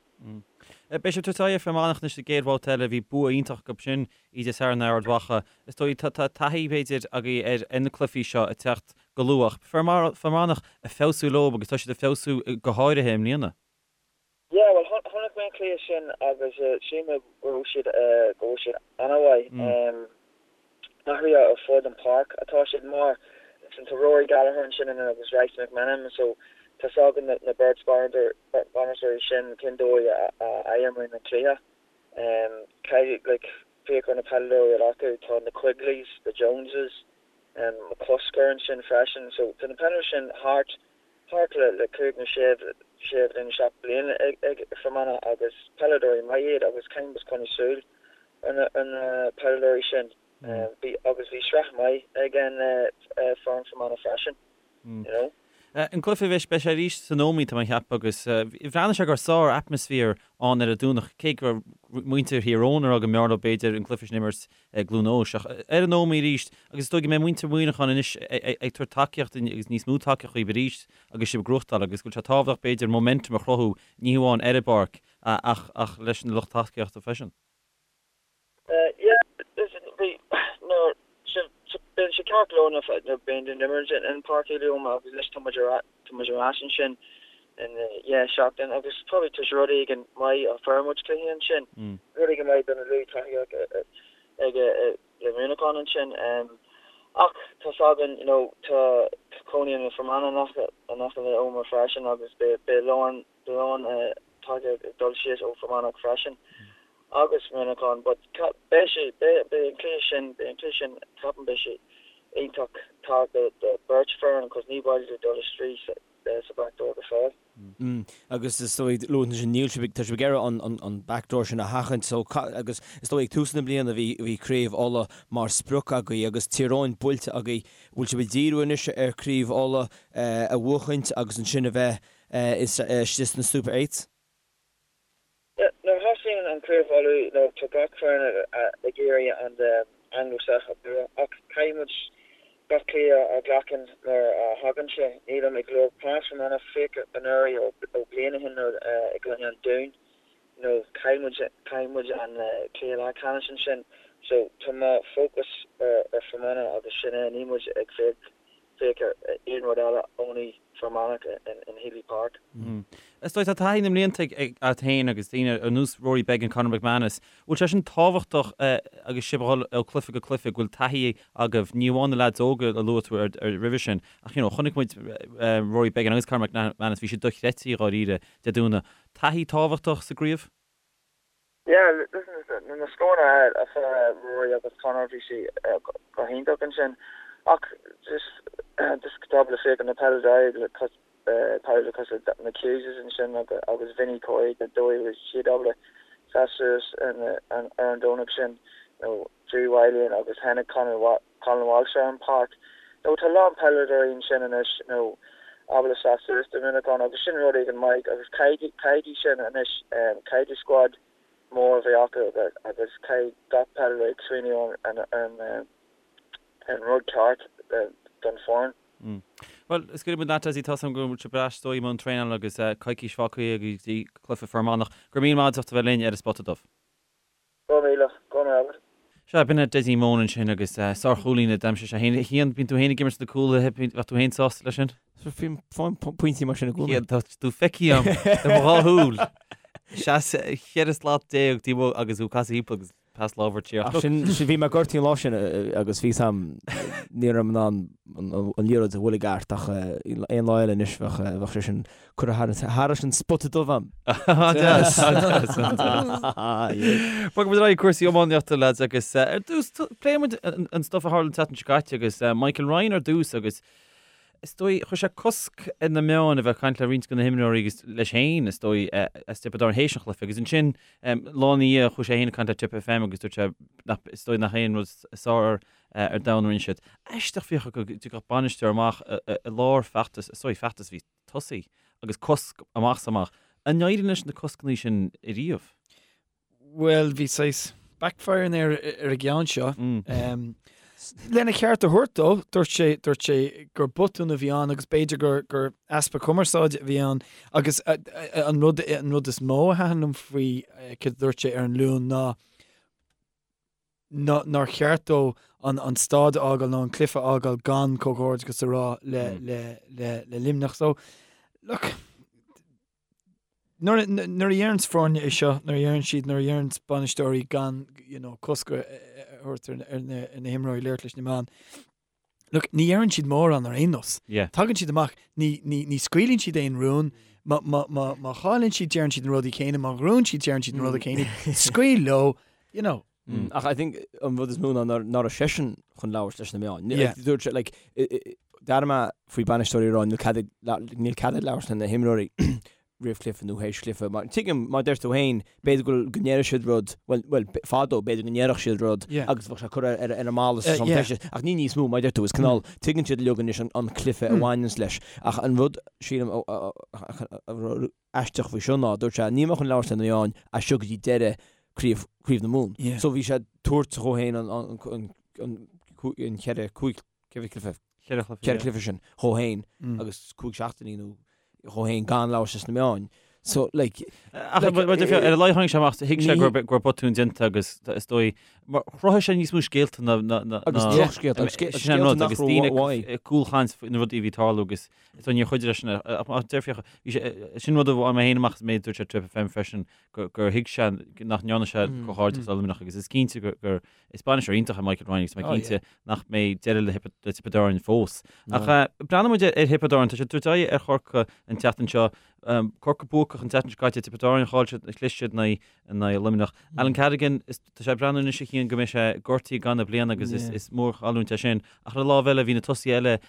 Beidh sibh ag tabhairt aghaidh ar Fear Manach anois sa gcéad bhabhta eile. Bhí bua iontach acu sin oíche Dé Sathairn ar Ard Mhacha. Is dóigh tá taithí, b'fhéidir, agaibh ar na cluichí seo ag teacht go luath. Ach Fear Manach ag feabhsú leo agus tá siad ag feabhsú go háirithe i mbliana. Yeah, bhuel, chonaic mé an cluiche sin agus shíl mé go raibh siad, go raibh siad an-mhaith. Athruithe ar fud an páirc atá siad mar listen tá Rory Gallagher ansin in agus Rice McMenamin so tá 's againn na beirt bainisteoirí sin cén dóigh a imríonn an cluiche. Caithfidh like féach ar na peileadóirí atá acu tá na Quigleys, the Joneses, McCusker ansin freisin so tá na peileadóirí sin thart thart le le 5 nó 6 sé bhliain 7 bliana ag ag Fermanagh agus peileadóirí maith iad agus caithfidh muid coinneáil súil ar na peileadóirí sin. Bhí agus bhí sraith maith ag an foireann Fermanagh freisin, you know. An cluiche bheidh beidh sé arís san Ómaigh tá mé ag ceapadh agus bhreathnaigh sé go raibh sár atmaisféar ann ar an Domhnach cé go raibh muintir Thír Eoghain ag rá go mb'fhearr leo b'fhéidir an cluiche sin a imirt i gCluain Eois ach ar an Ómaigh arís agus is dóigh go mbeidh muintir Mhuineacháin anois ag tabhairt tacaíocht agus níos mó tacaíocht dhaoibh arís agus sibh ag gnóthachtáil agus go bhfuil sé tábhachtach b'fhéidir momentum a chruthú ní hamháin ar an bpáirc ach leis an lucht tacaíochta freisin. Yeah, listen, bhí, nuair, bíonn sé ceart go leor nuair a bíonn tú ag imirt in Páirc Uí Liam agus anois tá muid ar, tá muid ar ais ansin in, yeah, seachtain agus probably tá sé rud éigin maith a fuair muid cluiche ansin, rud éigin maith do na lucht tacaíochta ag le Muineachán ansin. Ach tá 's againn, you know, tá cónaíonn na Fermanagh in aice, in aice le Omagh freisin agus beidh, beidh lán, beidh lán tacaíocht ag dul síos ó Fermanagh freisin agus Muineachán but beidh sé, beidh, beidh an cluiche sin, beidh an cluiche sin, ceapaim beidh sé iontach tábhachtach do beirt foireann cos ní mhaith leo dul isteach sa, sa back door go fóill. Mm agus is dóigh luaigh tú sin níl sibh ag, tá sibh ag iarraidh an, an, an back door sin a sheachaint so agus is dóigh ag tús na bliana bhí, bhí Craobh Uladh mar sprioc agaibh agus Tír Eoghain buailte agaibh, bhfuil sibh ag díriú anois ar Craobh Uladh a bhuachaint agus ansin a bheith istigh sna Super Eights? Nuair a thosaíonn an Craobh Uladh nó tá gach foireann ag iarraidh an Anglo-South a bhua ach caithfidh muid gach cluiche a ghlacann mar a thagann sé. Nílim ag lorg pas Fermanagh féach anuraidh ó bliain ó shin nuair i gcoinne an Dúin nó chaill muid chaill muid an cluiche leathcheannais ansin so tá mo focus ar Fermanagh agus sin é níl muid ag féach féach ar aon rud eile only Fermanagh in Healy Park. Is dóigh tá taithí na mblianta agat féin agus daoine ar nós Rory Beggan, Conor McManus, bhfuil sé sin tábhachtach agus sibh ag dhul ó cluiche go cluiche, go bhfuil taithí agaibh, ní amháin na leaids óga a luaigh tú roimhe sin, ach you know chonaic muid Rory Beggan agus Conor McManus, bhí siad dochreidte dháiríre Dé Domhnaigh. Taithí tábhachtach sa gcraobh? Yeah, listen, na scóranna a fuair Rory agus Conor, bhí sé go hiontach ansin. Ach just, just tá le féach na peileadóirí le peileadóirí cosúil le na Hugheses ansin agus Vinny Corey, an dóigh a raibh siad ábalta seasamh suas ar an Domhnach sin, nó Drew Wylie agus tháinig Conor Colin Walsh ar an páirc. Nó tá a lán peileadóirí ansin anois nó ábalta seasamh suas do Mhuineachán agus sin rud éigin maith agus caithfidh sin anois, caithfidh squad mór a bheith acu agus caithfidh gach peileadóir ag smaoineamh ar an rud ceart don foireann. Bhuel, scaoilfidh muid leat, Dessie, tá 's agam go bhfuil sibh ar ais is dóigh i mbun traenála agus coicís fágtha go dtí cluiche Fear Manach. Go raibh míle maith agat as ucht a bheith linn ar an Spota Dubh. Go raibh míle, go raibh maith agat. Sea, b'in é Dessie Moan ansin agus sár-chúlaí a d'aimsigh sé féin. Cian, bíonn tú féin ag imirt sna cúlaithe, bheadh tú féin sásta leis sin? Bím fáim pointí mar sin i gcónaí. Cian, tá tú feicthe agam le mo dhá shúil. Seas 14 slat taobh amuigh agus tú ag casadh thimpeall agus pas lámhar tíocht. Ach sin, bhí mé gortaithe an lá sin agus bhí sam, ní raibh mé in ann an liathróid a bhualadh i gceart ach aon lá eile anois bheadh sé sin Curtha thairis an spota dubh a'm. An-deas, an-deas, an-deas. Bogfaidh muid ar aghaidh cúrsaí iománaíochta lads agus ar dtús pléifidh muid an stuff a tharla an tseachtain seo caite agus Michael Ryan ar dtús agus. Is dóigh, chuir sé cosc ar na meáin a bheith ag caint le roinnt de na himreoirí agus leis féin, is dóigh, as Tiobraid Árann théis an chluiche. Agus ansin, lá ina dhiaidh, chuaigh sé féin ag caint le Tipp FM agus dúirt sé nach, is dóigh nach aon rud is fearr ar domhan a rinne siad. Aisteach Fiachra go dtiocfadh bainisteoir amach i lár feachtas, is dóigh, feachtas a bhí tosaithe agus cosc amach is amach. An éiríonn leis na coscanna sin ariamh? Bhuel, bhí saghas backfiring air ar an gceann seo. Lena cheart a thabhairt dó, dúirt sé, dúirt sé gur botún a bhí ann agus b'fhéidir gur, gur easpa cumarsáide a bhí ann agus an rud, an rud is mó a thaitin liom faoi céard a dúirt sé ar an Luan ná ná nár cheart dó an, an staid a fhágáil nó an cluiche a fhágáil gan comhghairdeachas a rá le, le, le, le Luimneach. So, look, Nuair a dheireanns foirne é seo, nuair a dheireann siad, nuair a dheireanns bainisteoirí gan, you know, cosc a thabhairt ar na himreoirí labhairt leis na meáin, look, ní dheireann siad mórán ar aon nós. Tagann siad amach, ní, ní, ní scaoileann siad aon rún, má, má, má, má chailleann siad deireann siad na rudaí céanna, má ghnóthaíonn siad deireann siad na rudaí céanna, scaoil leo, you know. Ach I think an rud is mó ná nach raibh seisean chun labhairt leis na meáin. Dúirt sé, like, d'airigh mé faoi bainisteoirí ag rá níl cead ag, níl cead ag labhairt le na himreoirí roimh chluiche nó théis chluiche. Mar tuigim, mar deir tú féin, b'fhéidir go go ndéarfadh siad rud, bhuel, bhuel, fadó b'fhéidir go ndéarfadh siad rud agus bheadh sé curtha ar ar an mballa sa yeah. Ach ní níos mó, mar deir tú, is cineál, tuigeann siad uilig anois an an cluiche a bhaineanns leis. Ach an rud, sílim, a aisteach faoi seo ná, dúirt sé, níl mé chun labhairt le na meáin as seo go dtí deireadh craobh, Craobh na Mumhan. Yeah. So bhí sé ag tabhairt dhó féin an, an, an, an, an cheithre, cúig, ceithre chluiche, Cheithre chluiche, cheithre chluiche sin dhó féin agus cúig seachtainí nó dhó féin gan labhairt leis na meáin. So, like, Ach like, mar ar a laghad tháinig sé amach, thuig sé go raibh go raibh botún déanta agus is dóigh, mar chruthaigh sé níos mó scéalta ná ná ná Agus drochscéalta, agus scéalta sin an rud, nach agus raibh daoine uaidh. ag cúlchaint faoi na rudaí a bhí ag tarlú agus So níor chuidigh leis sin, ach deir Fiachra, bhí sé, sin rud a bhain mé féin amach is méid dúirt sé Tipp FM freisin, gur thuig sé nach ndearna sé comhghairdeachas le Luimneach agus is cinnte gur, is bainisteoir iontach é Michael Ryan agus tá mé cinnte nach mbeidh deireadh le Tiobraid Árann fós. Ach breathnóidh muid ar Thiobraid Árann, tá siad ag tabhairt aghaidh ar Chorcaigh an tseachtain seo, Corcaigh buacach an tseachtain seo caite, Tiobraid Árann chaill siad, chlis siad in aghaidh Luimneach. Alan Cadogan, tá sé ag breathnú anois a Chian go mbeidh sé gortaithe i gcaitheamh na bliana agus is mórchailliúint é sin. Ach ar an lámh eile bhí na tosaithe eile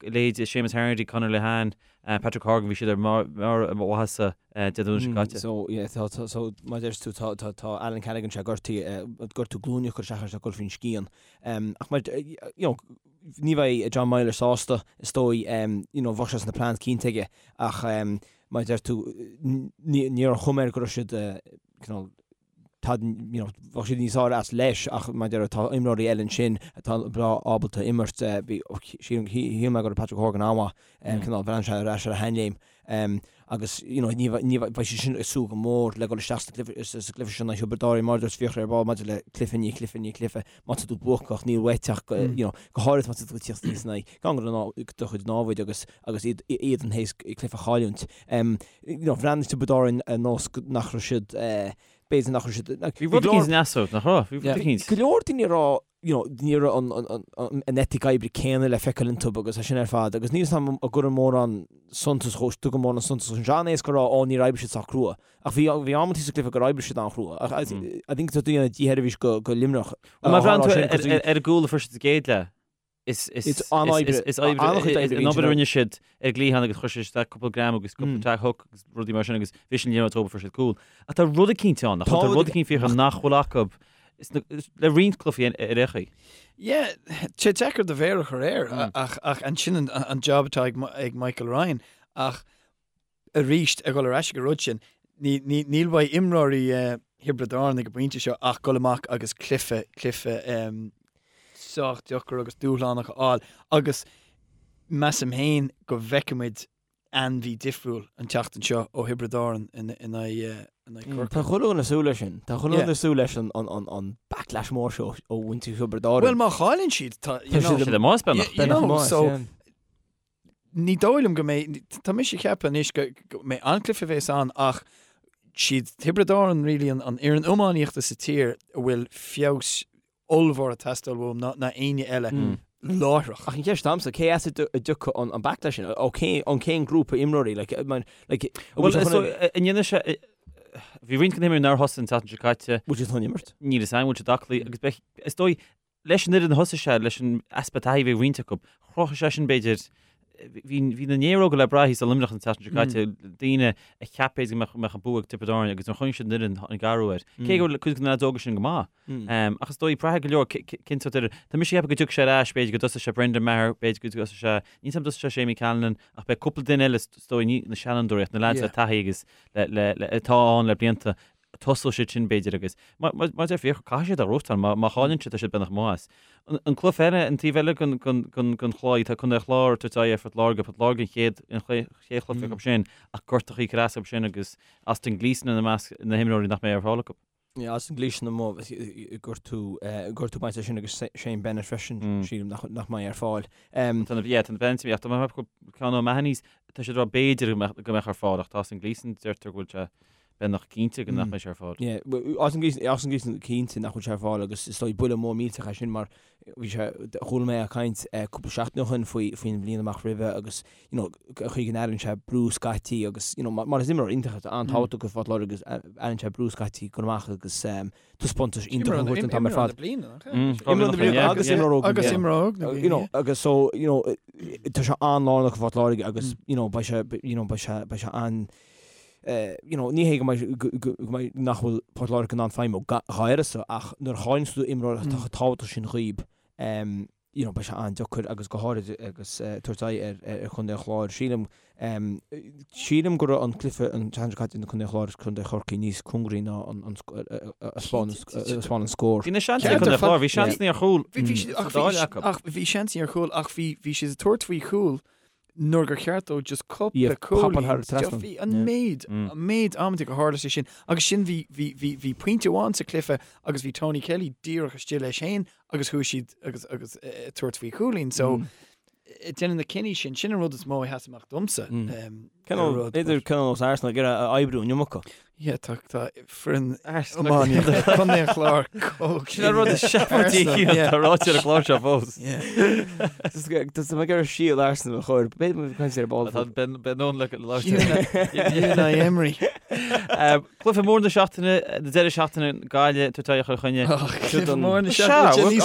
leithéidí Seamus Harnedy, Conor Lehane, Patrick Horgan, bhí siad ar mbarr a maitheasa Dé Domhnaigh seo caite. So, yeah, tá, tá, so, mar a deir tú, tá, tá, tá Alan Cadogan sé gortaithe, gortú glúine a chuir isteach air ag dul faoin scian. Ach mar, you know, ní bheidh John Meyler sásta, is dóigh, you know, bheadh sé sna plans cinnte aige, ach mar a deir tú, ní, ní raibh an chuma air go raibh siad, cineál, tá, you know, bheadh siad níos fearr as leis ach mar a deir tá imreoirí eile ansin atá breá ábalta imirt. Bhí, shíl mé go raibh Patrick Horgan an-mhaith, cineál bhreathnaigh sé ar ais ar a sheanléim agus, you know, ní ní bheidh siad sin ag súil go mór le dul isteach sa gcluiche sin in aghaidh Thiobraid Árann mar a dúirt Fiachra ar ball maidir le cluiche i ndiaidh cluiche i ndiaidh cluiche, má tá tú buacach níl uait ach, you know, go háirithe má tá tú ag tíocht aníos in aghaidh gan do chuid námhaid agus agus iad iad théis cluiche a chailliúint. You know, bhreathnaigh Tiobraid Árann ar nós nach raibh siad, b'fhéidir nach raibh siad, Bhí rud eicínt in easnamh, nach raibh? Bhí rud eicínt. Go leor daoine ag rá, you know, ní raibh an, an, an, an eitic oibre céanna le feiceáil iontu agus é sin ar fad agus níl 'fhios a'm an gcuireann mórán suntas dhó, tugann mórán suntas dhó. Sé an-éasca a rá, ó níor oibrigh siad sách crua. Ach bhí, bhí amantaí sa gcluiche gur oibrigh siad an-chrua. Ach I, I think tá tú ag déanamh dísheirbhís go, go Luimneach. Má bhreathnaíonn tú ar, ar, ar an gcúl a fuair siad sa gcéad leath, Is an-obair an obair a rinne siad ar an gcliathán agus chuir siad isteach cúpla greim agus cúpla tag hook agus rudaí mar sin agus bhí sin liathróid tógtha fuair siad cúl. Ach tá rud eicínt ann, nach bhfuil? Tá rud eicínt Fiachra nach bhfuil acu le roinnt cluichí ar aon chaoi. Yeah, tá sé deacair do mhéar a chur air ach ach ansin an job atá ag Michael Ryan ach arís ag dul ar ais ag an rud sin, níl uaidh imreoirí Thiobraid Árann ag an bpointe seo ach dul amach agus cluiche, cluiche sách deacair agus dúshlánach a fháil agus measaim féin go bhfeicfimid ainmhí difriúil an tseachtain seo ó Thiobraid Árann in aghaidh Corcaigh. Tá chuile dhuine ag súil leis sin. Tá chuile dhuine ag súil leis an backlash mór seo ó mhuintir Thiobraid Árann. Bhuel má chailleann siad, tá, you know, siad amuigh beagnach. You know, so, Ní dóigh liom go mbeidh, tá mise ag ceapadh anois go mbeidh an-chluiche a bheas ann ach siad Tiobraid Árann really an fhoireann iománaíochta sa tír a bhfuil feabhas ollmhór ag teastáil uathu ná ná éinne eile láithreach. Ach an cheist agamsa, cé as a dtiocfaidh an backlash sin? Ó cén, ón cén grúpa imreoirí? Like, like, Bhuel, so, an ndéanfaidh sé, bhí roinnt de na himreoirí nár thosaigh an tseachtain seo caite. Bhfuil siad chun imirt? Níl fhios agam, bhfuil siad aclaí agus beidh, is dóigh, Leis an fhoireann a thosaigh sé, leis an easpa taithí a bhí ag roinnt acu, chruthaigh sé sin, b'fhéidir, Bhí bhí na néaróga le brath thíos i Luimneach an tseachtain seo caite, daoine a cheap b'fhéidir go mbeadh an bua ag Tiobraid Árann agus nuair a chonaic siad an fhoireann tháinig athrú air. Cé go bhfuil cuid de na leaids óga sin go maith. Ach is dóigh, braithfidh go leor cén sórt fhoireann. Tá mise ag ceapadh go dtiocfaidh sé ar ais, b'fhéidir go dtosóidh sé Brendan Maher, b'fhéidir go dtosóidh sé, níl 's agam dtosóidh sé Séimí Callanan, ach beidh cúpla duine eile is dóigh, ní na seanfhondúirí ach na leaids le taithí agus le, le, le, atá ann le blianta, tosóidh siad sin b'fhéidir agus mar a deir Fiachra, caithfidh siad a ghnóthachtáil, má, má chailleann siad tá siad beagnach amuigh as. An, an cluiche eile, an taobh eile den, den, den, den chlaí, tá Contae an Chláir ag tabhairt aghaidh ar Phort Láirge, Port Láirge an chéad, an chéad chluiche acu sin ach gortachaí ag cur as acu sin agus Austin Gleeson ina measc na himreoirí nach mbeidh ar fáil acu. Yeah, Austin Gleeson amuigh gortú gortú bainte sin agus Shane Bennett freisin sílim nach nach mbeidh ar fáil. Tá na yeah, tá na Bennett ach tá mé ceann O'Mahony's tá siad ag rá b'fhéidir go mbeadh go mbeadh ar fáil ach tá Austin Gleeson deirtear go bhfuil sé beagnach cinnte go nach mbeidh sé ar fáil. Yeah, Austin Gleeson Austin Gleeson cinnte nach bhfuil sé ar fáil agus is dóigh buille mór millteach é sin mar bhí sé chuala mé ag caint cúpla seachtain ó shin faoi faoin bhliain amach roimhe agus you know, chaoi go n-airíonn sé brú scaití agus, you know, mar is imreoir iontach é, an-tábhachtach do Phort Láirge agus airíonn sé brú scaití go amach agus taispeántais iontach a thabhairt an t-am ar fad. Imreoir na bliana agus imreoir óg na bliana. Agus imreoir óg na bliana. You know, agus so, you know, tá sé an-lárnach do Phort Láirge agus, you know, beidh sé, you know, beidh sé, beidh sé an, you know, ní hé go mbeidh, go mbeidh, nach bhfuil Port Láirge in ann feidhmiú dá uireasa ach nuair a chailleann tú imreoir atá chomh tábhachtach sin dhaoib, you know, beidh sé an-deacair agus go háirid agus tabhairt aghaidh ar Chontae an Chláir. Sílim, sílim go raibh an cluiche an tseachtain seo caite idir Contae an Chláir agus Contae Chorcaí níos cóngaraí ná an a 'spáin an scór. Bhí na seansanna ag Contae an Chláir, bhí seansanna ar chúl sa dá leath acu. Ach bhí seansanna ar chúl ach bhí bhí siad ag tabhairt faoi chúl nuair gur cheart dóibh just cúpla cúilín. Bhí an méid, an méid amanta gur tharla sé sin agus sin bhí bhí bhí bhí pointe amháin sa cluiche agus bhí Tony Kelly díreach istigh leis féin agus chuaigh siad agus agus ag tabhairt faoi chúilín so déanamh na cinní sin, sin an rud is mó a sheas amach domsa. B'fhéidir cineál nós Arsenal ag iarraidh a oibriú an iomarca. Yeah, tá tá foireann iománaíochta Chontae an Chláir chomh Sin an rud is seafóidí atá ráite ar an gclár seo fós. Tá mé ag iarraidh síol Arsenal a chur, b'fhéidir go caint ar ball. Tá Ben Ben Owen le labhairt. Unai Emery. Cluiche mór na seachtaine, na deireadh seachtaine, Gaillimh ag tabhairt aghaidh ar Chill Chainnigh. Cluiche mór na seachtaine,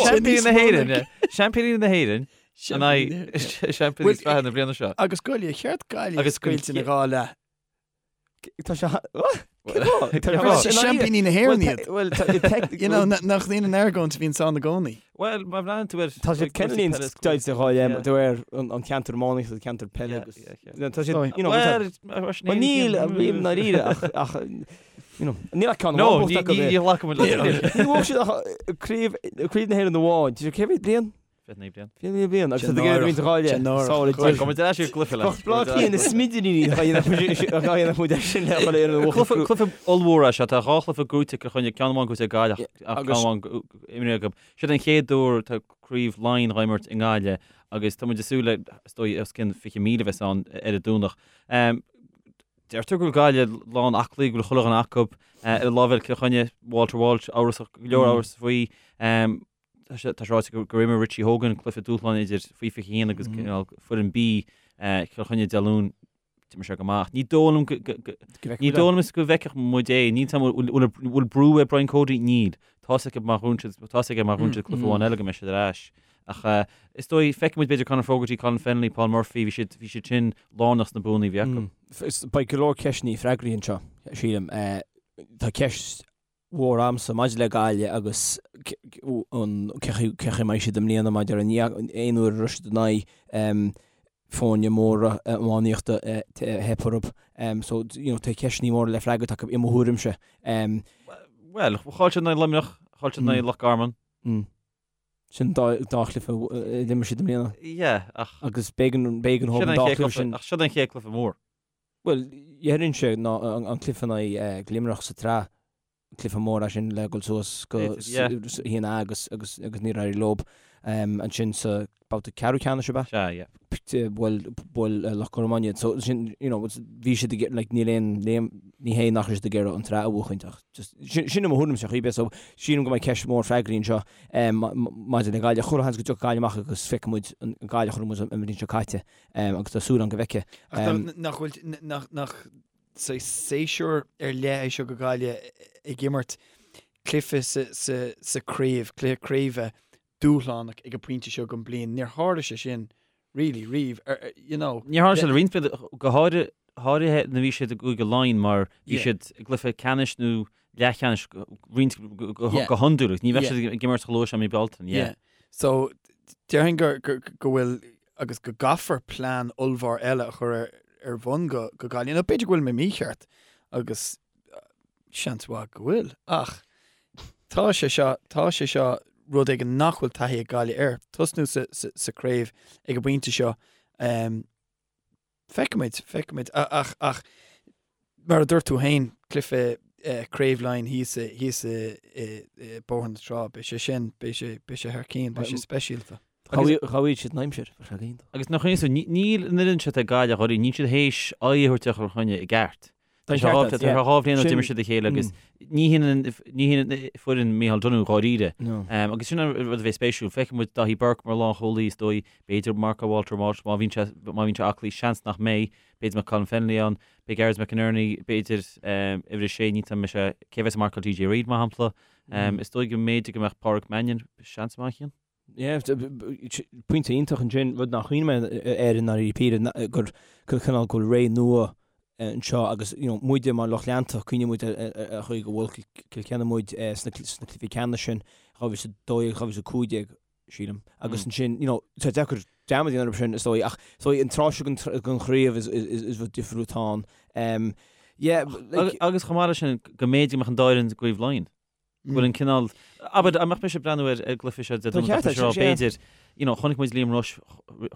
Seaimpíní na hÉireann, Seaimpíní na hÉireann, in aghaidh Seaimpíní Sraithe na bliana seo. Agus Gaillimh, cheart Gaillimh a scoilt ina dhá leath. Tá sé Seaimpíní na hÉireann iad. Bhuel, You know, nach bhíonn an argóint a bhíonn ann i gcónaí. Bhuel, má bhreathnaíonn tú ar... Tá siad cineáilín deighilte dhá leath, de réir an ceantar iománaíochta, an ceantar peile agus... Tá siad, you know, Bhuel, níl, i ndáiríre, ach, you know, níl ach ceann amháin buaite acu. No, ní ghlacaim le. Ní bhuaigh siad ach craobh na hÉireann amháin. Cé mhéad bliain? 29 bliain. 29 bliain agus tá ag iarraidh roinnt gháire sála Gabh muid ar ais ar an gcluiche le. Bheadh Bleá Cliath na smidiríní a dhéanfadh muid air sin le dhul ar an Cluiche cluiche ollmhór é seo. Tá dhá chluiche gnóite ag Cill Chainnigh, ceann amháin gnóite ag Gaillimh ach ceann amháin imrithe acu. Siod an chéad uair tá craobh Laighean á imirt i nGaillimh agus tá muid ag súil le is dóigh os cionn 20,000 a bheas ann ar an Domhnach. Deirtear go bhfuil Gaillimh lán aclaí, go bhfuil chuile dhuine acu. Ar an lámh eile Cill Chainnigh, Walter Walsh amhrasach, go leor amhras faoi. Tá sé ráite gur imir Richie Hogan cluiche dúshláin idir faoi 21 agus foireann B Chill Chainnigh Dé Luain. D'imir sé go maith. Ní dóigh liom go ní dóigh liom go bhfeicfeadh muid é. Níl a fhios agam bhfuil bhfuil brú ar Brian Cody? Níl. Tá 's aige má bhuann siad tá 's aige má bhuann siad cluiche amháin eile go mbeidh siad ar ais. Ach is dóigh feicfidh muid b'fhéidir Conor Fogarty, Colin Fennelly, Paul Murphy, bhí siad bhí siad sin lárnach sna buanna a bhí acu. Beidh go leor ceisteanna freagraithe anseo, sílim. Tá ceist mhór a'msa maidir le Gaillimh agus an cé chaoi a mbeidh siad i mbliana maidir an aon uair a raibh siad in aghaidh foirne móra iománaíochta theip orthu. So you know tá ceisteanna móra le freagairt acu i mo thuairimse. Bhuel, chaill siad in aghaidh Luimneach, chaill siad in aghaidh Loch Garman. Sin dá chluiche a d'imir siad i mbliana. Yeah, ach. Agus b'éigean b'éigean dhóibh an dá chluiche sin. Ach siod an chéad cluiche mór. Bhuel, déarfainnse ná an cluiche in aghaidh Luimneach sa tsraith, cluiche mór é sin le dhul suas go haon A agus agus agus níor éirigh leo ansin sa babhta ceathrú ceannais ab ea? Sea, yeah. Bhuail bhuail Loch Garman iad. So sin, you know, bhí siad ag like níl aon ní hé nach raibh siad ag iarraidh an tsraith a bhuachaint ach just sin sin i mo thuairimse ar bith. So sílim go mbeidh ceist mhór freagraithe anseo maidir le Gaillimh. Chuile sheans go dtiocfaidh Gaillimh amach agus feicfidh muid an Gaillimh a chonaic muid an bhliain seo caite. Agus tá súil agam go bhfeicfidh. Ach nach bhfuil, nach, nach séasúr ar leith é seo go Gaillimh ag imirt cluiche sa, sa, sa craobh, cluiche craoibhe dúshlánach ag an pointe seo den bliain. Níor tharla sé sin. really, riamh, you know. Níor tharla sé le roinnt blianta, go háirithe nuair a bhí siad i gCúige Laighean mar bhí siad i gcluiche ceannais nó leathcheannais roinnt go hiondúil agus ní bheadh siad ag imirt chomh luath sin i mí Bealtaine. Yeah. So déarfainn go bhfuil agus go gcaithfear plean ollmhór eile a chur ar bhun go Gaillimh. Nó b'fhéidir go bhfuil mé mícheart agus seans mhaith go bhfuil ach tá sé seo, tá sé seo rud éigin nach bhfuil taithí ag Gaillimh air. Tosnú sa, sa, sa craobh ag an bpointe seo. Um, feicfimid, feicfimid. Ach, ach mar a dúirt tú féin, cluiche eh, Craobh Laighean thíos, thíos i, i, i Bóthar na Trá, beidh sé sin, beidh sé, beidh sé thar cinn, beidh sé speisialta. Ghabhaigh siad an aimsir, bheadh sé iontach. Agus nach iontas, níl an fhoireann seo ag Gaillimh dháiríre, níl siad théis aghaidh a thabhairt ar Chill Chainnigh i gceart. Tá sé dhá bhliain ó d'imir siad a chéile agus ní hionann ní hionann foireann Micheál Donoghue dháiríre. Agus sin an rud a bheidh spéisiúil. Feicfidh muid Daithí Burke mar lánchúlaí is dóigh, b'fhéidir Mark Walter Walsh má bhíonn sé má bhíonn sé aclaí, seans nach mbeidh, b'fhéidir mbeadh Colin Fennelly ann, beidh Gearóid McInerney, b'fhéidir uimhir a sé, ní tá mise cé a bheas ag marcáil DJ Reid mar shampla. Is dóigh go mb'fhéidir go mbeadh Páraic Mannion, seans maith ann. Yeah, pointe iontach ansin, rud nár chuimhnigh mé air i ndáiríre píre, gur cineál go bhfuil ré nua anseo agus you know muide mar lucht leanta, cuimhníonn muid ar an chaoi gur bhuail Cill Chainnigh muid sna cluichí ceannais sin, 2012, 2015, sílim. Agus ansin, you know, tá deacair dearmad a dhéanamh orthu sin, is dóigh, ach is dóigh an tráth seo den chraobh is rud difriúil atá ann. Yeah, like. Agus chomh maith leis sin, go mb'fhéidir go mbeadh an dá fhoireann i gCraobh Laighean. Go bhfuil an cineál, abair, dá mbeadh mise ag breathnú ar an gcluiche seo Dé Domhnaigh, bheadh mise ag rá, b'fhéidir, you know, chonaic muid Liam Rushe,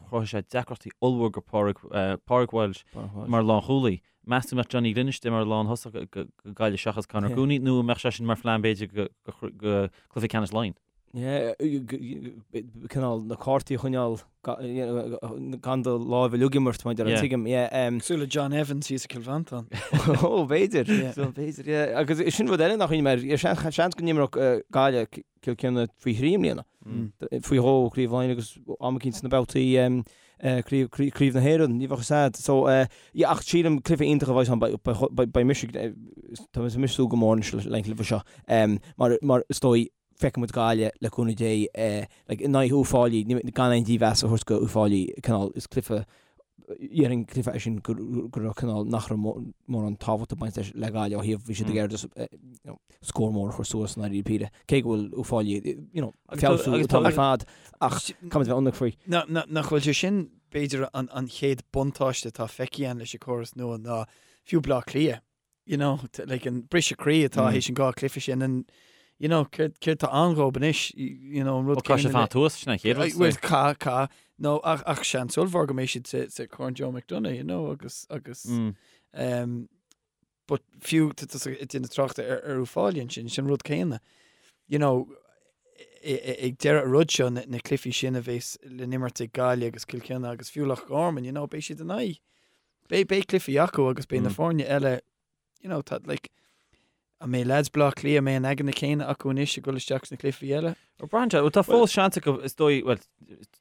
chruthaigh sé deacrachtaí ollmhór go Pádraig, Pádraig Walsh mar lánchúlaí. Meas tú an mbeadh Johnny Glynn istigh mar lánthosach go Gaillimh seachas Conor Cooney nó an mbeadh sé sin mar phlean b'fhéidir go cluiche ceannais Laighean? Cineál na cártaí a choinneáil gan do láimh uilig a imirt, mar a tuigim. Cosúil le John Evans thíos i Cill Mhantáin. Ó, b'fhéidir. B'fhéidir, yeah. Agus sin rud eile nach chuimhnigh mé air. Seans go n-imreodh Gaillimh Cill Chainnigh faoi thrí i mbliana. Faoi dhó Craobh Laighean agus am eicínt sna babhtaí Craobh na hÉireann. Ní bheadh fhios a'd. So, yeah, ach sílim cluiche iontach a bheidh ann. Beidh mise, tá mise ag súil go mór anois leis an gcluiche seo. Mar is dóigh feicfidh muid Gaillimh, le cúnamh Dé, like, in aghaidh Uíbh Fhailí, gan aon dímheas a thabhairt go Uíbh Fhailí, cineál, is cluiche, dhéarfainn cluiche é sin go raibh cineál, nach raibh mórán tábhacht ag baint leis le Gaillimh ó thaobh, bhí siad ag iarraidh just, you know, scór mór a chur suas i ndáiríre píre, cé go bhfuil Uíbh Fhailí, you know, ag feabhsú an t-am ar fad, ach caithfimid a bheith ionraic faoi. Nach bhfuil sé sin, b'fhéidir, an chéad buntáiste atá feicthe againn leis an córas nua ná fiú Bleá Cliath, you know, like an briseadh croí atá théis an dhá cluiche sin and you know, céard céard tá ann dhóibh anois, you know, an rud Ó caithfidh siad fanacht thuas, sin an chéad rud. Well, ca, ca, no, ach, ach seans ollmhór go mbeidh siad sa, sa Corn Joe McDonagh, you know, agus, agus, mm. um, but fiú tá ag déanamh tráchta ar, ar Uíbh Fhailí ansin, sin rud céanna. You know, ag deireadh an rud seo, na, na cluichí sin a bheas le n-imirt ag Gaillimh agus Cill Chainnigh agus fiú Loch Garman, you know, beidh siad in aghaidh Beidh, beidh cluichí acu agus beidh na foirne eile, you know, tá, like, an mbeidh lads Bleá Cliath, an mbeidh an eagna céanna acu anois ag dul isteach sna cluichí eile? Ó braitheann sé, bhuel tá fós seans acu, is dóigh, bhuel,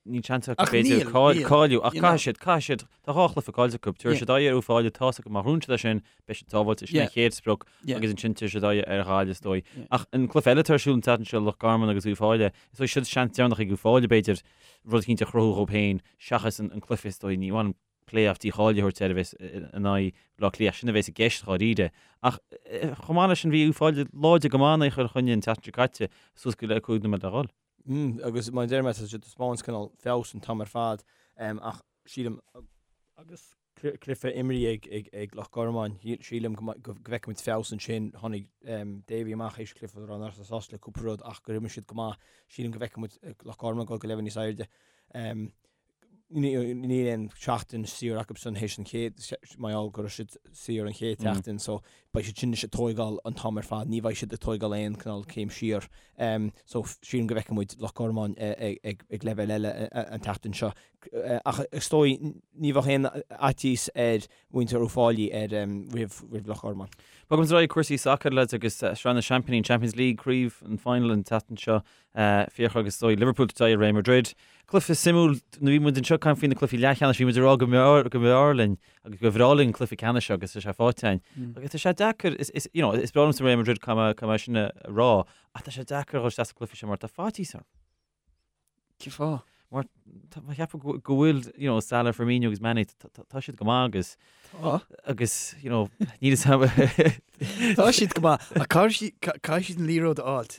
níl seans acu b'fhéidir cáiliú, ach caithfidh siad, caithfidh siad, tá dhá chluiche caillte acu, tabharfaidh siad aghaidh ar Uíbh Fhailí, tá's acu má ghnóthaíonn siad é sin, beidh siad sábháilte, sin an chéad sprioc, agus ansin tabharfaidh siad aghaidh ar Ghaillimh, is dóigh. Ach an cluiche eile atá ar siúl an tseachtain seo, Loch Garman agus Uíbh Fhailí, is dóigh siod seans deireanach ag Uíbh Fhailí, b'fhéidir, rud eicínt a chruthú dhóibh féin, seachas an cluiche, is dóigh, ní bhainim play-off dícháilithe a thabhairt air a bheas in aghaidh Bhaile Átha Cliath, sin a bheas i gceist dháiríre. Ach chomh maith leis sin bhí Uíbh Fhailí láidir go maith in aghaidh Chill Chainnigh an tseachtain seo caite, suas go le 5 nóiméad le dhul. Agus mar a deir mé, tá siad ag taispeáint cineál feabhas an t-am ar fad ach sílim agus cluiche imeartha ag Loch Garman, sílim go bhfeicfimid feabhas ansin. Tháinig Davy amach théis cluiche a rá nach raibh sásta le cúpla rud ach gur imir siad go maith. Sílim go bhfeicfimid Loch Garman ag dul go leibhéal níos airde. Níl aon seachtain saor acusan théis an chéad, mar gheall go raibh siad saor an chéad tseachtain so beidh siad sin anois ag tóigeáil an t-am ar fad, ní bheidh siad ag tóigeáil aon cineál céim siar. So sílim go bhfeicfidh muid Loch Garman ag leibhéal eile an tseachtain seo. Ach is dóigh ní bheadh aon fhaitíos ar mhuintir Uíbh Fhailí ar roimh Loch Garman. Bogaimis ar aghaidh cúrsaí sacair lads agus Sraith na Seaimpíní, Champions League, craobh an final an tseachtain seo. Fiachra agus is dóigh Liverpool ag tabhairt aghaidh ar Real Madrid. Cluiche suimiúil, nuair a bhí muid anseo ag caint faoi na cluichí leathcheannais, bhí muid ag rá go mb'fhearr go mb'fhearr linn agus go bhreá linn an cluiche ceannais seo agus tá sé faighte againn. Agus tá sé deacair, is, is, you know, is breá liomsa Real Madrid caithfidh mé, caithfidh mé sin a rá, ach tá sé deacair a dhul isteach sa chluiche seo mar tá faitíos orm. Cén fáth? Mar tá mé ag ceapadh go go bhfuil, you know, Salah, Firmino agus Mane, tá siad go maith agus Tá. agus, you know, níl a fhios agam. Tá siad go maith ach caithfidh siad caithfidh siad an liathróid a fháilt.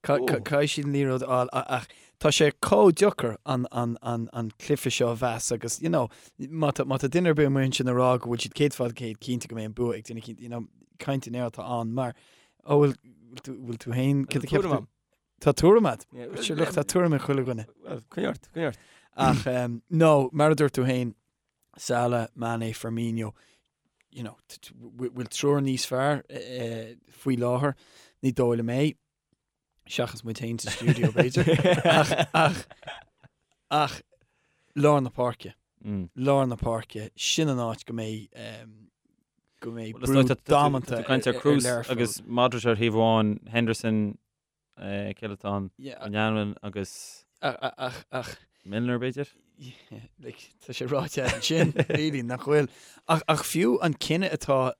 Caithfidh siad an liathróid a fháil ach tá sé chomh deacair an an an an cluiche seo a mheas agus, you know, má tá má tá duine ar bith amuigh ansin ag rá go bhfuil siad 100% cinnte go mbeidh an bua ag duine eicínt, you know, caint in aer atá ann mar, ó bhfuil bhfuil tú bhfuil tú féin, cad a Tá tuairim cheap tú? agam. Tá tuairim agat? Sure, look, tá tuairim ag chuile dhuine. Well, coinnigh ort, coinnigh ort. Ach, um, no, mar a dúirt tú féin, Salah, Mane, Firmino, you know, bhfuil triúr níos fearr eh, faoi láthair, ní dóigh liom é, seachas muid féin sa stiúideo, b'fhéidir. Ach, ach, ach, lár na páirce, Mm. lár na páirce, sin an áit go mbeidh, um, go mbeidh Well, is brú dóigh tá- tá tú- damanta tá tú ag caint ar ar- ar Kroos Learpholl. agus Modric ar thaobh amháin, Henderson, Cé eile atá ann? Yeah. Wijnaldum agus Ach, ach, ach. Milner, b'fhéidir? Yeah, like, tá sé ráite ansin, really, nach bhfuil. Ach, ach fiú an cinneadh atá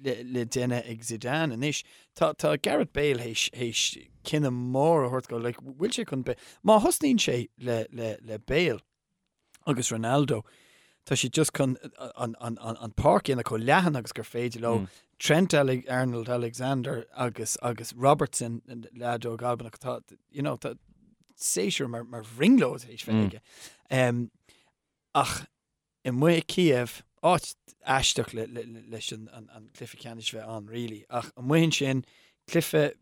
le, le déanamh ag Zidane anois, tá, tá Gareth Bale théis, théis cinneadh mór a thabhairt go, like, bhfuil sé chun Bale, má thosnaíonn sé le, le, le Bale, agus Ronaldo, tá siad just chun an, an, an, an páirc a dhéanamh chomh leathan agus gur féidir leo. Mm. Trent Ale Arnold Alexander agus, agus Robertson, leaid óg Albanach, tá, you know, tá séasúr mar, mar bhrionglóid théis bheith mm. aige. Um, ach amuigh i Kiev, áit aisteach le, le, le, leis an, an, an cluiche ceannais bheith ann, really. Ach amuigh ansin, cluiche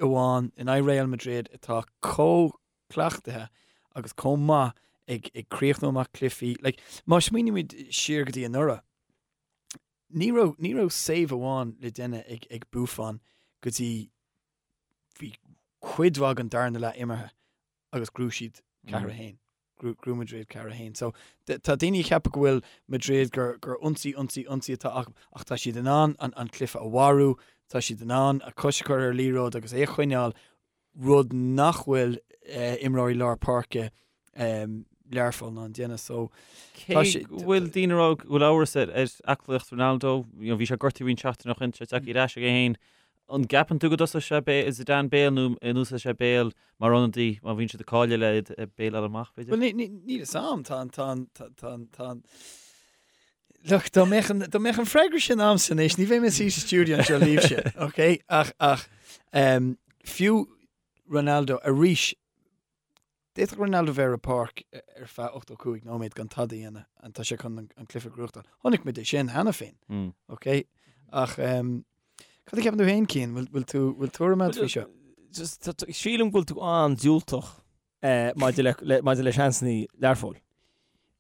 amháin in aghaidh Real Madrid atá chomh cleachtaithe agus chomh maith ag ag críochnú amach cluichí. Like, má smaoinímid siar go dtí anuraidh, ní raibh, ní raibh save amháin le déanamh ag, ag Buffon go dtí bhí cuid mhaith den darna leath imeartha agus ghnóthaigh siad 4-1. Ghnóthaigh Madrid 4-1. So, tá daoine ag ceapadh go bhfuil Madrid gur, gur ionsaí, ionsaí, ionsaí atá acu, ach tá siad in ann an, an cluiche a mharú, tá siad in ann a cois a chur ar liathróid agus é a choinneáil rud nach bhfuil imreoirí lár páirce Learpholl in ann déanamh. So, tá sé. Cé go bhfuil daoine ag rá go bhfuil amhras ar aclaíocht Ronaldo, you know, bhí sé gortaithe roinnt seachtaine ó shin, tá sé tagtha ar ais aige féin. An gceapann tú go dtosóidh sé Bale, Zidane Bale nó an úsáidfidh sé Bale mar ionadaí má bhíonn siad ag cailleadh le Bale a fháil amach, b'fhéidir? Bhuel, níl fhios a'm, tá an, tá an, tá an, tá an, Look, dá mbeadh an, dá mbeadh an freagra sin a'msa anois, ní bheinn i mo shuí sa stiúideo anseo libhse, ok? Ach, ach, um, fiú Ronaldo arís, d'fhéadfadh Ronaldo bheith ar an bpáirc ar feadh 85 nóiméad gan tada a dhéanamh and tá sé chun an, an cluiche a ghnóthachtáil. Chonaic muid é sin cheana féin, Mm. ok? Ach, um, cad a cheapann tú féin, Cian? Bhfuil, bhfuil tú, bhfuil tuairim agat faoi seo? Just, tá- tá- sílim go bhfuil tú an-diúltach maidir le, maidir le seansanna Learpholl.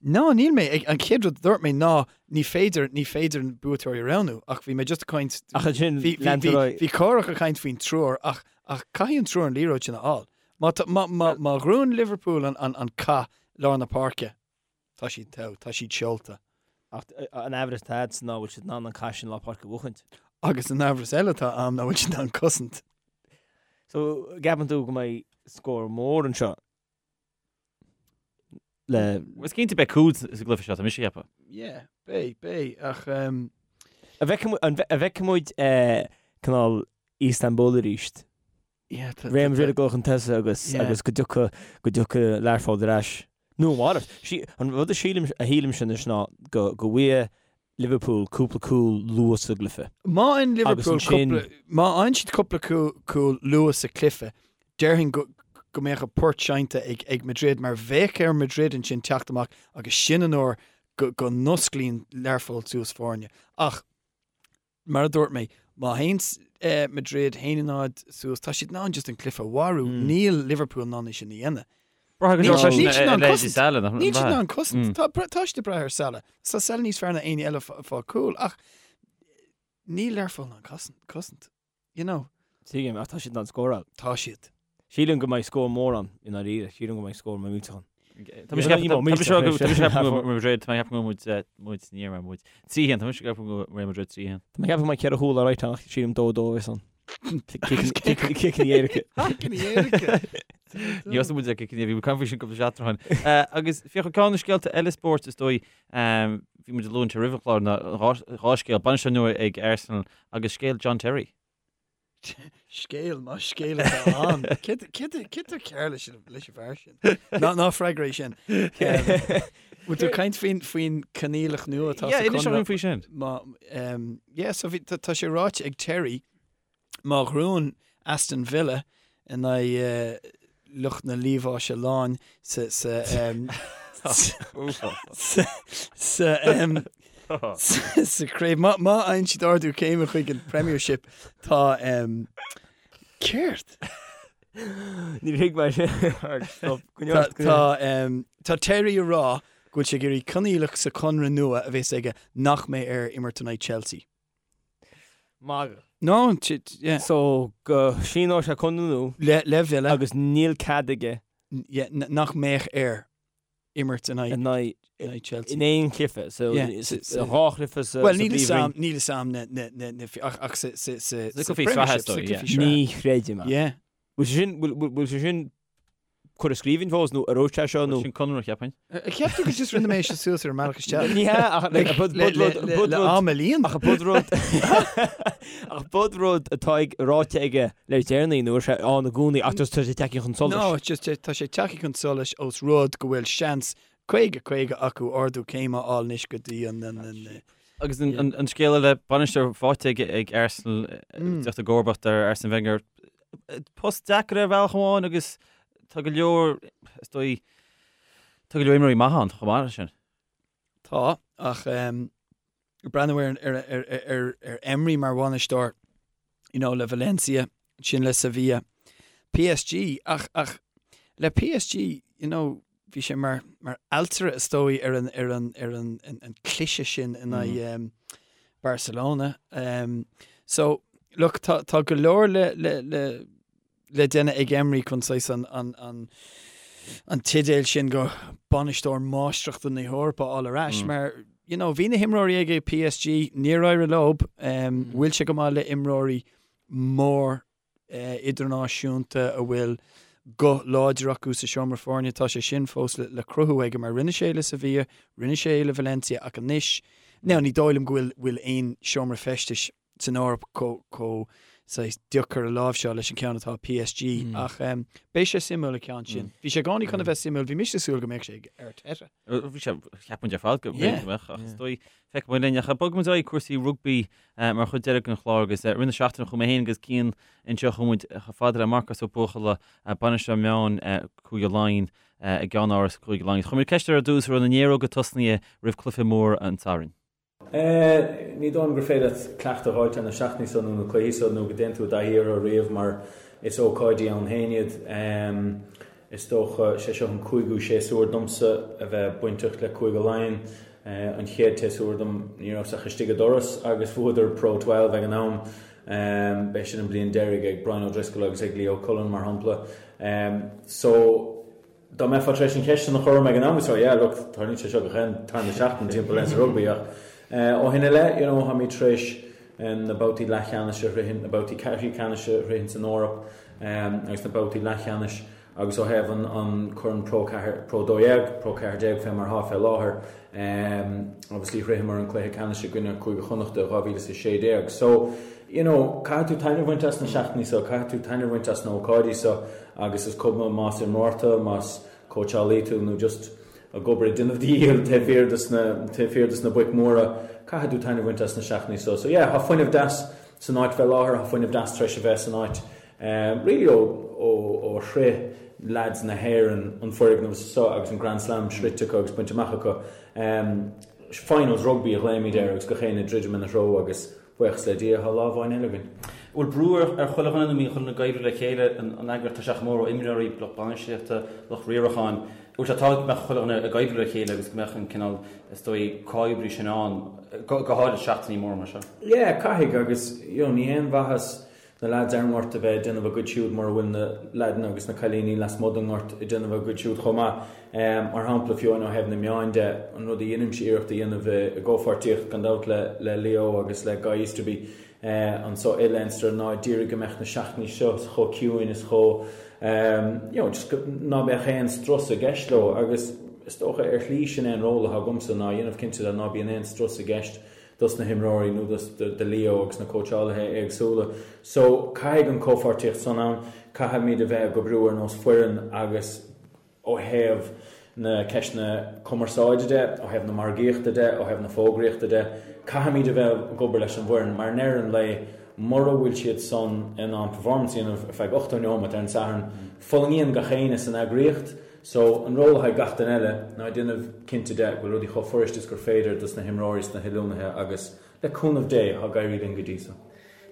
No, níl mé. An chéad rud a dúirt mé ná ní féidir, ní féidir an buaiteoirí a roghnú, ach bhí mé just ag caint, Ach ansin bhí, bhí, leantar bhí, ar aghaidh. bhí Cárthach ag caint faoin triúr ach, ach caithfidh an triúr an liathróid sin a fháil. Má tá, má, má, má ghnóthaíonn Liverpool an, an, an cath lár na páirce, tá siad togha, tá siad seolta. Ach an amhras atá agatsa ná bhfuil siad in ann an cath sin lár páirce a bhuachaint. Agus an amhras eile atá a'm ná bhfuil siad in ann cosaint. So, gceapann tú go mbeidh scór mór anseo le. Is cinnte beidh cúil sa gcluiche seo, tá mise ag ceapadh. Yeah, beidh, beidh, ach um. An bhfeicfidh muid cineál Istanbul arís? Yeah, tá, Real Madrid ag dul chun tosaigh agus Yeah. agus go dtiocfaidh go dtiocfaidh Learpholl ar ais. Nó a mhalairt. Sí, an rud a sílim a shílimse anois ná go go bhfaighidh Liverpool cúpla cúl luath sa gcluiche. Má fhaigheann Agus Liverpool ansin- cúpla, má fhaigheann siad cúpla cúl, cúl luath sa chluiche, déarfainn go, go mbeadh an port seinnte ag, ag Madrid mar bheadh ar Madrid ansin teacht amach agus sin an uair go, go n-osclaíonn Learpholl suas foirne. Ach Mar a dúirt mé, má théann Madrid 1-0 suas, tá siad in ann just an cluiche a mharú. Níl Liverpool in ann é sin a dhéanamh. Braithfidh go leor Níl freisin siad in ar ann leithéidí cosaint. Salah, nach Níl siad in mbeadh? ann cosaint. Tá tá siad ag brath ar Salah. Tá Salah níos fearr ná éinne eile fá chúl ach níl Learpholl in ann cosaint. You know. Tuigim, ach tá siad in ann scóráil. Tá siad. Sílim go mbeidh scór mór ann, i ndáiríre. Sílim go mbeidh scór millteach ann. Tá mise ag ceapadh go Madrid, tá mé ag ceapadh go muid muid ní raibh muid. 3-1, tá mise ag ceapadh go Real Madrid 3-1. Tá mé ag ceapadh go mbeidh 4 chúl alright ann ach sílim 2-2 a bheas ann. Ciceanna éirice. Ciceanna éirice. Ní fhios muid ag ciceanna, bhí muid ag caint faoi sin cúpla seachtain ó shin. Agus féach ceann de na scéalta eile spóirt is dóigh, bhí muid ag lua anseo roimh an chlár ná dhá scéal, bainisteoir nua ag Arsenal agus scéal John Terry. Scéal, más scéal atá ann. Céard atá cearr leis an bhfear sin? Ná freagair é sin. Bhfuil tú ag caint faoin faoin coinníollacht nua atá sa inis dúinn faoi sin. Má, yeah, so bhí, tá sé ráite ag Terry, má ghnóthaíonn Aston Villa in aghaidh lucht na Liamháise Láin sa sa sa sa sa chraobh. Má má fhaigheann siad ardú céime chuig an Premiership tá céard? Níor thuig mé sin. Stop. Tá tá tá Terry ag rá go bhfuil sé ag iarraidh coinníollacht sa chonradh nua a bheas aige nach mbeidh air imirt in aghaidh Chelsea. Magadh. No, yeah. So go síneoidh sé conradh nua. Le le Villa. Agus níl cead aige. Yeah, nach mbeadh air imirt in aghaidh. In aghaidh. In aghaidh Chelsea. In aon chluiche. So dhá chluiche sa Well, níl 'fhios a'm, níl 'fhios a'm na, na, na, na, ach, ach sa, sa, sa, sa cluichí sraithe, so, yeah. Ní chreidim é. Yeah. Bhfuil sé sin, bhfuil sé sin curtha i scríbhinn fós nó ar sé seo nó? Sin conradh, cheapfainn. Cheap tú gur just rinne mé seo suas ar an mbealach isteach? Ní hea ach like bud Le bud rud bud le rud am a líon? ach bud rud ach bud rud atá ag ráite aige le déanaí nó sé ann i gcónaí ach just tá sé tagtha chun solais. No, it's just tá sé tagtha chun solais ós rud go bhfuil seans 50 50 acu ardú céime a fháil anois go dtí an an Agus an scéal eile, bainisteoir faighte ag Arsenal, teacht i gcomharbacht ar Arsene Wenger. Post deacair ar bhealach amháin agus tá go leor, is dóigh, tá go leor imreoirí maithe ann chomh maith leis sin. Tá, ach breathnú ar, ar, ar, ar, ar Emery mar bhainisteoir, you know, le Valencia, ansin le Sevilla, PSG, ach, ach le PSG, you know, bhí sé mar, mar ailtire is dóigh ar an, ar an, ar an, an, an cliseadh sin in aghaidh um, Barcelona. Um, so, look, tá, tá go leor le, le, le, le déanamh ag Emery chun saghas an, an, an, an teideal sin go bainisteoir máistreachta na hEorpa a fháil ar ais, mm. mar you know, bhí na himreoirí aige PSG, níor éirigh leo, um, bhfuil sé go maith le imreoirí mór idirnáisiúnta a bhfuil guth láidir acu sa seomra foirne. Tá sé sin fós le cruthú aige mar rinne sé le Sevilla, rinne sé le Valencia ach anois, now ní dóigh liom go bhfuil bhfuil aon seomra feistis san Eoraip chomh saghas deacair a láimhseáil leis an ceann atá ag PSG ach beidh sé suimiúil an ceann sin. Bhí sé i gcónaí chun a bheith suimiúil, bhí mise ag súil go mbeadh sé ag Arteta. Bhí sé, cheap muid ar fad go mbeadh ach is dóigh feicfidh muid linn ach bogfaidh muid ar aghaidh cúrsaí rugbaí Mar chuid deiridh den chlár agus i rith na seachtaine chuaigh mé féin agus Cian anseo chuaigh muid chomh fada le Marcas Ó Buachalla, bainisteoir meán Cúige Laighean i gceannáras Chúige Laighean. Chuir muid ceist air ar dtús an raibh na néaróga tosnaithe roimh cluiche mór an tSathairn. Ní dóigh liom gur féidir leat cleachtadh a fháilt ar na seachtainí seo nó na cluichí seo nó go dtéann tú i dtaithí orthu riamh mar is ócáidí ann féin iad. Is dócha, sé seo an cúigiú séasúr domsa a bheith bainteach le Cúige Laighean. An chéad tséasúr dom ní rabhas ach istigh an doras agus bhuadar Pro 12 ag an am. B'é sin an bliain deiridh ag Brian O'Driscoll agus ag Leo Cullen mar shampla. So, dá mbeifeá tar éis an cheist sin a chur orm ag an am, so yeah, look, tarlaíonn sé seo gach aon tarna seachtain timpeall Leinster Rugby ach ó shin i leith, you know, táimid tar éis na babhtaí leathcheannais a shroichint, na babhtaí ceathrú ceannais a shroichint san Eoraip agus na babhtaí leathcheannais agus ó thaobh an Corn Pro 4, Pro 12, Pro 14 fé mar atá fé láthair, obviously shroicheamar an cluiche ceannais i gcoinne Cúige Chonnachta i 2016. So, you know, caithfidh tú taitneamh a bhaint as na seachtainí seo, caithfidh tú taitneamh a bhaint as na hócáidí seo agus is cuma más imreoir tú, más cóitseálaí tú nó just ag obair ag déanamh do dhícheall taobh thiar dos na, taobh thiar dos na boic mhóra, caithfidh tú taitneamh a bhaint as na seachtainí seo. So yeah, tá fuinneamh deas san áit fé láthair, tá fuinneamh deas tar éis a bheith san áit really ó, ó, ó shroich leaids na hÉireann an foirgneamh seo agus an Grand Slam sroichte acu agus bainte amach acu. Finals rugby a ghlaoimid air agus gach éinne ag druidim ina threo agus Buíochas le Dia, tá lá amháin eile againn. Bhfuil brú ar chuile dhuine nó an mbíonn chuile dhuine ag oibriú le chéile, an eagraíocht, tá sé chomh mór ó imreoirí, lucht bainistíochta, lucht riaracháin. Bhfuil sé tábhachtach go mbeadh chuile dhuine ag oibriú le chéile agus go mbeadh an cineál, is dóigh, comhoibriú sin ann, go háirid seachtainí móra mar seo? Yeah, caithfidh agus, you know, ní haon mhaitheas na leaids ar an ngort a bheith ag déanamh a gcuid siúd mura bhfuil na leaideanna agus na cailíní lasmuigh den ngort ag déanamh a gcuid siúd chomh maith. Mar shampla, fiú amháin ó thaobh na meáin de, an rud a dheinimse iarracht a dhéanamh i gcomhpháirtíocht, gan dabht, le Leo agus le Guy Easterby anso i Leinster ná d'iarraidh go mbeadh na seachtainí seo chomh ciúin is chomh, you know, just ná beadh aon strus i gceist leo agus is dócha ar shlí sin é an ról atá agamsa ná a dhéanamh cinnte de ná bíonn aon strus i gceist. dos na himreoirí nó dos do Leo agus na cóitseálaithe éagsúla. So caithfidh an comhpháirtíocht san ann, caithfimid a bheith ag oibriú ar nós foireann agus ó thaobh na ceisteanna cumarsáide de, ó thaobh na margaíochta de, ó thaobh na fógraíochta de, caithfimid a bheith ag obair leis an bhfoireann mar i ndeireadh an lae mura bhfuil siad san in ann performance a dhéanamh ar feadh 80 neomat ar an Satharn, fulaingíonn gach éinne san eagraíocht. So, an ról atá ag gach duine eile ná déanamh cinnte de go bhfuil rudaí chomh fuirist is gur féidir dos na himreoirí is na hoiliúnaithe agus, le cúnamh Dé, tá ag éirí linn go dtí so.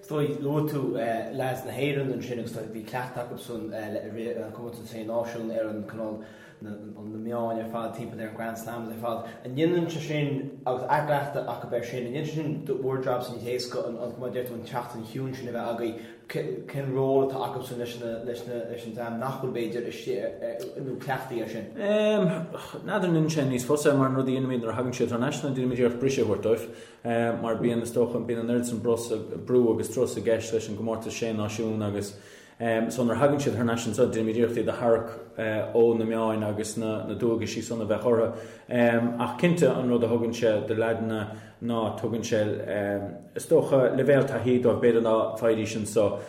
Is dóigh, luaigh tú leaids na hÉireann ansin agus bhí cleachtadh acusan i rith an Comórtas Sé Náisiún ar an cineál na meáin ar fad timpeall ar an Grand Slams ar fad. An ndéanann sé sin, agus athchleachtadh acu air sin, an ndéanann sé sin bhur jab-sa níos éasca an, mar a deir tú, an tseachtain chiúin sin a bheith agaibh? Cén ról atá acusan leis an dream nach bhfuil b'fhéidir istigh nó cleachtaithe air sin? N'fheadar an ndéanann sé níos fusa mar an rud a dhéanaimid nuair a thagann siad thar n-ais ná déanaimid iarracht briseadh a thabhairt dóibh. Mar bíonn, is dócha, bíonn an oiread san brú agus strus i gceist leis an gcomórtas Sé Náisiún agus so nuair a thagann siad thar n-ais anso déanaimid iarracht iad a tharrac ó na meáin agus na dualgaisí san a bheith orthu. Ach cinnte an rud a thugann sé do leaideanna ná tugann sé, is dócha, leibhéal taithí dóibh b'fhéidir ná faighidís anso,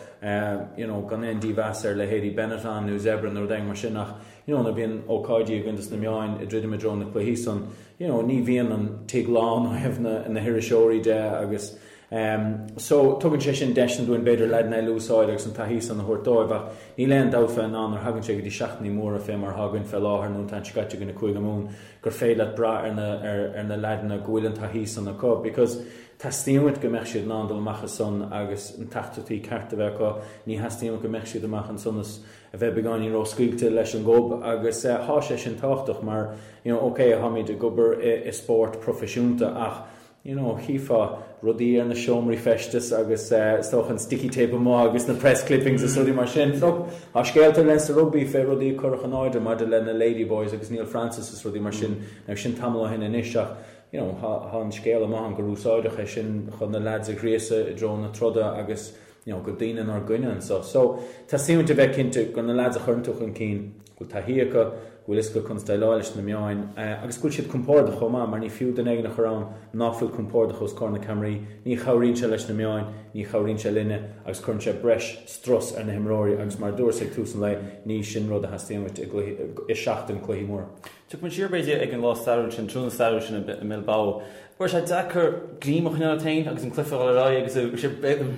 you know, gan aon dímheas ar leithéidí Benetton nó Zebre nó rud éigin mar sin ach, you know, nuair a bhíonn ócáidí againn dos na meáin ag druidim i dtreo na cluichí san, you know, ní bhíonn an tigh lán ó thaobh na, na hiriseoirí de agus em so tugann sé sin deiseanna dúinn b'fhéidir leaideanna eile a úsáid agus an taithí san a thabhairt dóibh ach níl aon dabht fé ná nuair a thagann sé go dtí seachtainí móra fé mar atá againn fé láthair nó an t-am seo caite againn i Cúige Mumhan gur féidir leat brath ar na, ar, ar na leaideanna go bhfuil an taithí san acu because teastaíonn uait go mbeadh siad in ann dul amach ansan agus na teachtaireachtaí ceart a bheith acu, ní theastaíonn uait go mbeadh siad amach ansan is a bheith beagáinín ró-scaoilte leis an ngob agus thá sé sin tábhachtach mar you know ok tháimid ag obair i spórt proifisiúnta ach you know chífeá rudaí ar na seomraí feistis agus is dócha an sticky tape amuigh agus na press clippings is rudaí mar sin. Look, tá scéalta le sa rugbaí fé rudaí a cuireadh in airde maidir le na Ladyboys agus Neil Francis is rudaí mar sin, now sin tamall ó shin anois ach you know thá an scéal amuigh ann gur úsáideadh é sin chun na lads a ghríosadh i dtreo na troda agus you know, go daoine inár gcoinne anso. So, teastaíonn uait a bheith cinnte gur na lads a chuireann tú chun cinn, go bhfuil taithí acu, go bhfuil fhios acu conas déileáil leis na meáin, agus go bhfuil siad compordach chomh maith, mar ní fiú duine éigin a chur ann ná fuil compordach os comhair na ceamaraí, ní chabhraíonn sé leis na meáin, ní chabhraíonn sé linne, agus cuireann sé breis strus ar na himreoirí, agus mar a dúras ag tús an lae, ní sin rud a theastaíonn uait i gcluiche, i seachtain cluichí móra. Tiocfaidh muid siar, b'fhéidir, ag an lá stairiúil sin, tráthnóna stairiúil sin i mBilbao. Raibh sé deacair greim a choinneáil ort féin agus an cluiche a dhul ar aghaidh agus bhí sé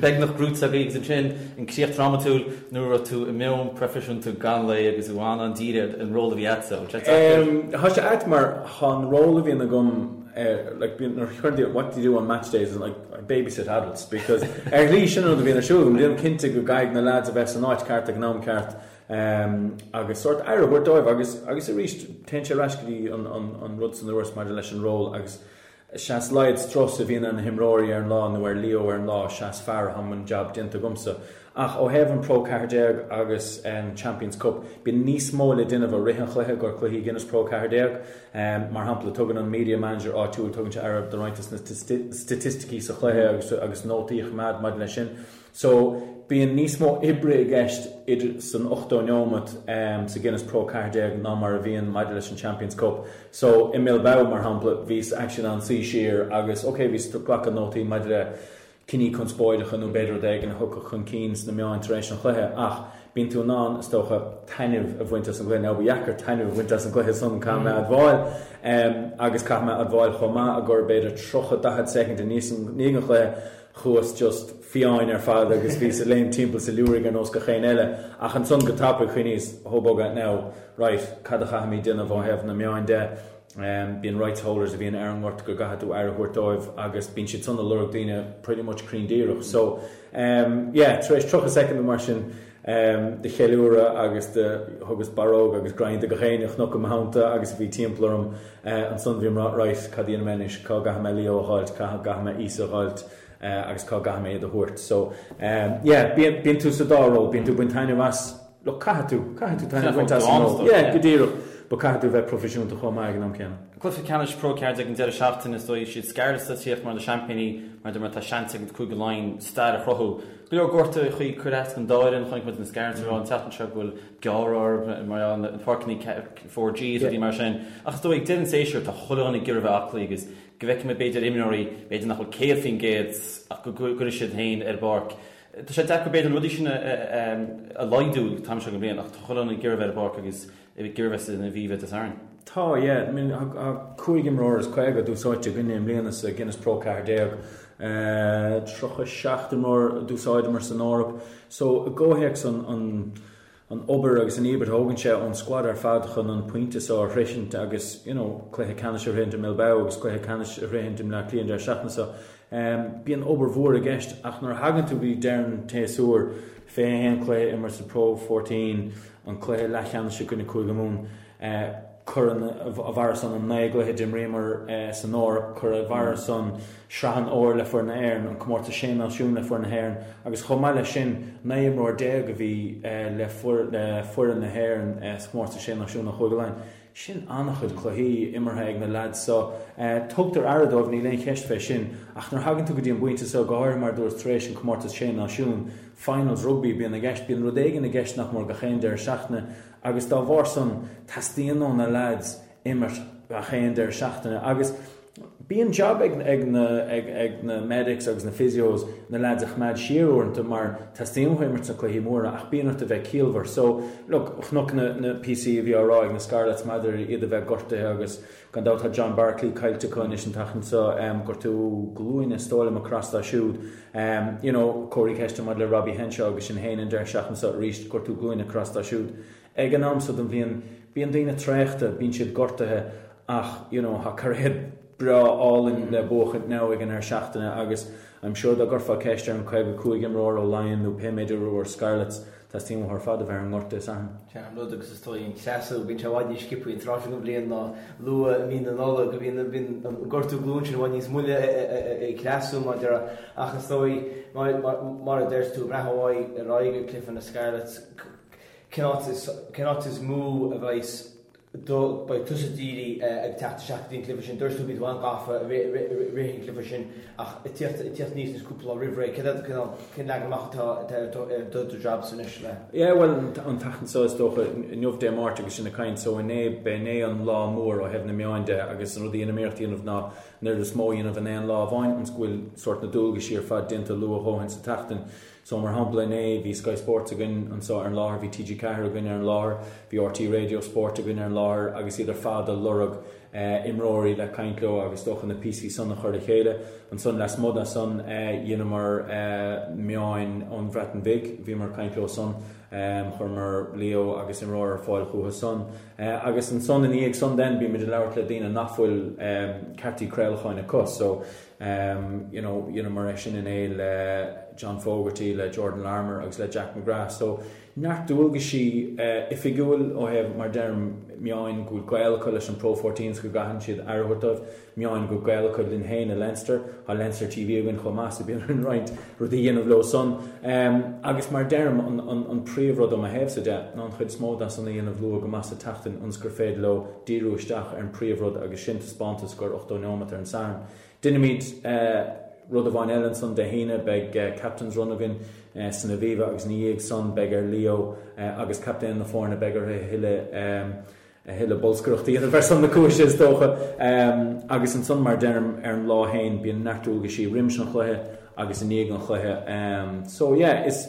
beagnach gnóite agaibh agus ansin an críoch drámatúil nuair a raibh tú i meon proifisiúnta gan lao agus tú an-dírithe ar an ról a bhí agatsa. Bhfuil sé deacair? Tá sé ait mar tá an ról a bhíonn agam like bíonn nuair a chuireann daoine what do you do on match days like I babysit adults because ar shlí sin an rud a bhíonn ar siúl agam déanaim cinnte go gcaithfidh na lads a bheith san áit ceart ag an am ceart agus sórt aire a thabhairt dóibh agus agus arís téann sé ar ais go dtí an an an rud san a dúras maidir leis an ról agus sea is laghad strus a bhíonn ar na himreoirí ar an lá nó ar Leo ar an lá sea is fearr atá an jab déanta agamsa. Ach ó thaobh an Pro 14 agus an Champions Cup bíonn níos mó le déanamh i rith an chluiche gur cluichí Guinness Pro 14. Mar shampla tugann an media manager áitiúil tugann sé aire do roinnt de na staitisticí sa chluiche agus agus nótaí a choimeád maidir leis sin. So, bíonn níos mó oibre i gceist idir san 80 neomat sa Guinness Pro 14 ná mar a bhíonn maidir leis an Champions Cup. So, i mBilbao, mar shampla, bhíos actually in ann suí siar agus, ok, bhíos ag glacadh nótaí maidir le cinní conspóideacha nó b'fhéidir rud éigin a thiocfadh chun cinn sna meáin tar éis an chluiche ach bíonn tú in ann, is dócha, taitneamh a bhaint as an gcluiche. Now, ba dheacair taitneamh a bhaint as an gcluiche san, caithfidh mé a admháil, agus caithfidh mé a admháil chomh maith gur b'fhéidir 30, 40 soicind i ndiaidh an chluiche, Chuas just fiáin ar fad agus bhíos ag léim timpeall sa liúraigh ar nós gach éinne eile. Ach ansan go tapaidh chuimhníos, hó bugger now, right, cad a chaithfimid déanamh ó thaobh na meáin de? Bíonn rights holders a bhíonn ar an ngort go gcaithfidh tú aire a thabhairt dóibh agus bíonn siad san ag lorg daoine pretty much cruinn díreach. So, yeah, tar éis 30 soicind nó mar sin de cheiliúradh agus de thugas barróg agus greim do gach éinne a chonac i mo theannta agus a bhí timpeall orm, Ansan bhí mé right, cad a dhéanfaidh mé anois, cá gcaithfidh mé Leo a dh'fháilt, cá gcaithfidh mé Íosa a dh'fháilt agus cá gcaithfidh mé iad a thabhairt. So yeah, bíonn, bíonn tú sa dá ról, bíonn tú ag baint taitneamh as, look, caithfidh tú, caithfidh tú taitneamh a bhaint as an ról. Yeah, go díreach, but caithfidh tú bheith proifisiúnta chomh maith ag an am céanna. Cluiche ceannais Pro 14 an deireadh seachtaine, is dóigh, siad Scarlets atá ag tíocht mar na seaimpíní, mar mar tá seans ag Cúige Laighean stair a chruthú. Go leor gortuithe a chuir as don dá fhoireann, chonaic muid na Scarlets ag rá an tseachtain seo go bhfuil gearradh orthu mar gheall ar na páirceanna 4G is rudaí mar sin. Ach is dóigh, ag deireadh an tséasúir, tá chuile dhuine ag iarraidh a bheith aclaí agus. go bhfeicfidh muid b'fhéidir imreoirí b'fhéidir nach bhfuil 100% ach go gcuirfidh siad féin ar an bpáirc. Tá sé deacair b'fhéidir na rudaí sin a laghdú an t-am seo den bhliain ach tá chuile dhuine ag iarraidh bheith ar an bpáirc agus ag iarraidh bheith san Aviva Dé Sathairn. Tá, yeah. I mean, tá 45 imreoir d'úsáidte againne i mbliana sa Guinness Pro 14. 37 imreoir d'úsáideamar san Eoraip. So, i gcomhthéacs an, an, an obair agus an íobairt a thógann sé ón squad ar fad chun an pointe seo a shroichint agus, you know, cluiche ceannais a shroichint i mBilbao agus cluiche ceannais a shroichint i mBleá Cliath an deireadh seachtaine seo. Bíonn obair mhór i gceist ach nuair a thagann tú go dtí deireadh an tséasúir, 21 cluiche imeartha sa Pro 14, an cluiche leathcheannais i gcoinne Cúige Mumhan, cuir ina bharra san an 9 gcluiche d'imríomar san Eoraip, cuir ina bharra san Sraith an Fhómhair le foireann na hÉireann, an Comórtas Sé Náisiún le foireann na hÉireann agus chomh maith leis sin 19 imreoir a bhí le foireann na hÉireann sa Chomórtas Sé Náisiún ó Chúige Laighean. Sin an-chuid cluichí imeartha ag na leaids seo. Tugtar aire dóibh, níl aon cheist fé sin, ach nuair a thagann tú go dtí an bpointe seo, go háirithe mar a dúras tar éis an Comórtas Sé Náisiún, finals rugbaí a bíonn i gceist, bíonn rud éigin i gceist nach mór gach aon deireadh seachtaine agus dá bharr san teastaíonn ó na leaids imirt gach aon deireadh seachtaine agus bíonn jab ag ag na ag ag na medics agus na physios na leaids a choimeád siar uaireanta mar teastaíonn uathu imirt sna cluichí móra ach bíonn ort a bheith ciallmhar. So, look, chonac na na píosaí a bhí á rá ag na Scarlets maidir iad a bheith gortaithe agus gan dabht tá John Barclay caillte acu anois an tseachtain seo, gortú glúine is dóigh liom a chros dó siúd. You know, comharthaí ceiste maidir le Robbie Henshaw agus sin féin an deireadh seachtaine seo arís, gortú glúine chros dó siúd. Ag an am so den bhliain, bíonn daoine traochta, bíonn siad gortaithe ach, you know, tá cairéad breá álainn le buachaint now ag an ndeireadh seachtaine agus I'm sure dá gcuirfeá ceist ar an 55 imreoir ó Laighin nó pé méid imreoir Scarlets, teastaíonn uathu ar fad a bheith ar an ngort Dé Sathairn. Sin an rud agus is dóigh an creasadh, bíonn sé i bhfad níos sciobtha an tráth seo den bhliain ná luath i mí na Nollag, bíonn an gortú glúine sin i bhfad níos moille ag creasadh mar a déarfá ach is dóigh mar a deir tú, ag breathnú ar aghaidh ag cluiche na Scarlets, Cén áit is, cén áit is mó a bheidh do, beidh tusa dírithe ag teacht isteach go dtí an cluiche sin? Dúirt tú bhí tú an-ghafa i rith an chluiche sin ach ag tíocht, ag tíocht aníos anois cúpla lá roimh ré, céard é, cén, cén leagan amach atá, atá ar do, ar do, do jobsa anois le? Yeah, bhuel, an tseachtain seo is dócha, inniu Dé Máirt agus sinn ag caint, so inné, b'é inné an lá mór ó thaobh na meáin de agus an rud a dheinim iarracht a dhéanamh ná an oiread is mó a dhéanamh in aon lá amháin ionas go bhfuil sórt na dualgaisí ar fad déanta luath a dhóthain sa tseachtain. So, mar shampla, inné, bhí Sky Sports againn anseo ar an láthair, bhí TG4 againn ar an láthair, bhí RTÉ Radio Sport againn ar an láthair agus iad ar fad ag lorg imreoirí le caint leo agus is dócha na píosaí san a chur le chéile. Ansan, lasmuigh de san, dheineamar meáin ón Bhreatain Bhig, bhíomar ag caint leo san, chuireamar Leo agus imreoir ar fáil chucu san. Agus ansan, ina dhiaidh san then, bímid ag labhairt le daoine nach bhfuil ceartaí craolacháin acu. So, You know, dheineamar é sin inné le John Fogarty, le Jordan Larmour agus le Jack McGrath. So, neart dualgaisí oifigiúil ó thaobh, mar deirim, meáin go bhfuil gaol acu leis an Pro 14 's go gcaitheann siad aire a thabhairt dóibh, meáin go bhfuil gaol acu linn féin i Leinster, tá Leinster TV againn chomh maith so bíonn orainn roinnt rudaí a dhéanamh leo san. Agus mar deirim, an príomhrud ó mo thaobhsa de ná an chuid is mó de san a dhéanamh luath go maith sa tseachtain ionas gur féidir leo díriú isteach ar an príomhrud agus sin taispeántas scór 80 neomat ar an Satharn. Déanfaimid rud amháin eile ansan Dé hAoine, beidh Captain's Run againn san Aviva agus ina dhiaidh san beidh ar Leo agus captaen na foirne, beidh orthu a thuilleadh a thuilleadh bolscaireachta a dhéanamh ar son na cúise is dócha. Agus ansan mar deirim ar an lá féin bíonn neart dualgaisí roimis an chluiche agus i ndiaidh an chluiche. So yeah, is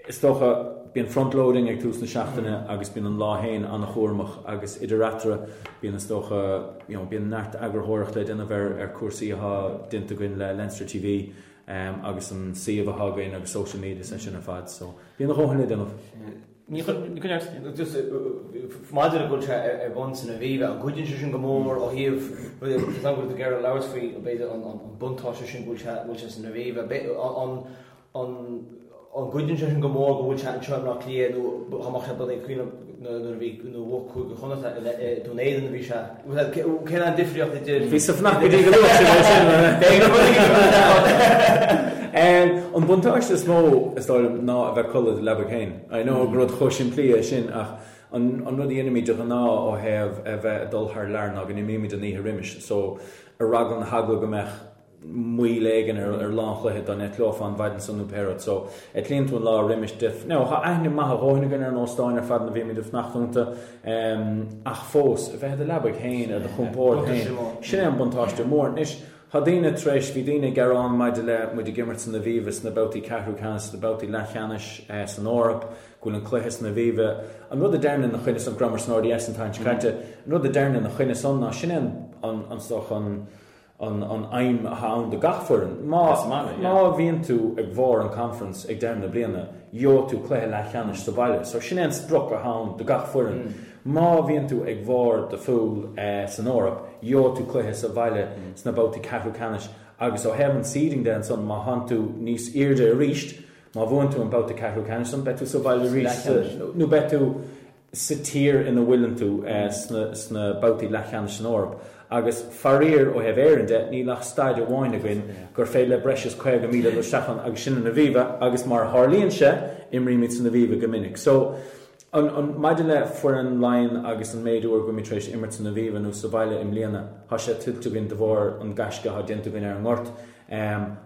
Is dócha, bíonn front-loading ag tús na seachtaine agus bíonn an lá féin an-chúramach agus idir eatarthu bíonn is dócha, you know, bíonn neart eagarthóireacht le déanamh ar ar cúrsaí atá déanta againn le Leinster TV agus an suíomh atá againn agus social media is é sin ar fad so bíonn a dhóthain le déanamh. Ní chuir, just maidir le go bhfuil sé ar bun san Aviva, an gcuidíonn sé sin go mór ó thaobh, tá a fhios agam go bhfuil tú ag iarraidh labhairt faoi b'fhéidir an buntáiste sin go bhfuil sé, go bhfuil sé san Aviva, an An gcuidíonn sé sin go mór go bhfuil sé anseo i mBleá Cliath nó dá mbeadh sé bunaithe cuimhin liom nuair a bhí nuair a bhuaigh Cúige Chonnacht i Dún Éideann a bhí sé. Cén an difríocht idir. Bhí sa FNAC go dtí go luath sin é sin. An buntáiste is mó is dóigh liom ná a bheith ag codladh i do leabaidh féin. I know gur rud chomh simplí é sin ach an rud a dhéanaimid de ghnáth ó thaobh a bheith ag dul thar lear ná go n-imímid an oíche roimis so ar eagla na heagla go mbeadh moill éigin ar lá an chluiche dá n-eitleofá an mhaidin san nó pé rud. So, eitlíonn tú an lá roimis de. Now, tá aithne maith a dhóthain againn ar na hóstáin ar fad ina bhímid ag fanacht iontu, ach fós, a bheith i do leabaidh féin, ar do chompord féin, sin é an buntáiste mór. Anois, Tá daoine tar éis, bhí daoine ag gearán maidir le muid ag imirt san Aviva sna babhtaí ceathrú ceannais, sna babhtaí leathcheannais san Eoraip, go bhfuil an cluiche san Aviva. An rud a déarfainn ina choinne san, go rabhamar san RDS an tseachtain seo caite, an rud a déarfainn ina choinne san ná sin é an, an, is dócha an, an an aidhm atá ann do gach foireann. Má má bhíonn tú ag bharr an conference ag deireadh na bliana, gheobhaidh tú cluiche leathcheannais sa bhaile. So sin é an sprioc atá ann do gach foireann. Má bhíonn tú ag bharr do phúl san Eoraip, gheobhaidh tú cluiche sa bhaile sna babhtaí ceathrú ceannais agus ó thaobh an seeding de ansan, má thánn tú níos airde arís, má bhuann tú an babhta ceathrú ceannais san, beidh tú sa bhaile arís nó beidh tú sa tír ina bhfuileann tú sna babhtaí leathcheannais san Eoraip. Agus faraor, ó thaobh Éireann de, níl ach staid amháin againn gur féidir le breis is 50,000 dul isteach ann agus sin an Aviva agus mar a tharlaíonn sé, imrímid san Aviva go minic. So, an, an, maidir le foireann Laighean agus an méid uair go bhfuilimid tar éis imirt san Aviva nó sa bhaile i mbliana, tá sé tuillte againn de bharr an gaisce atá déanta againn ar an ngort.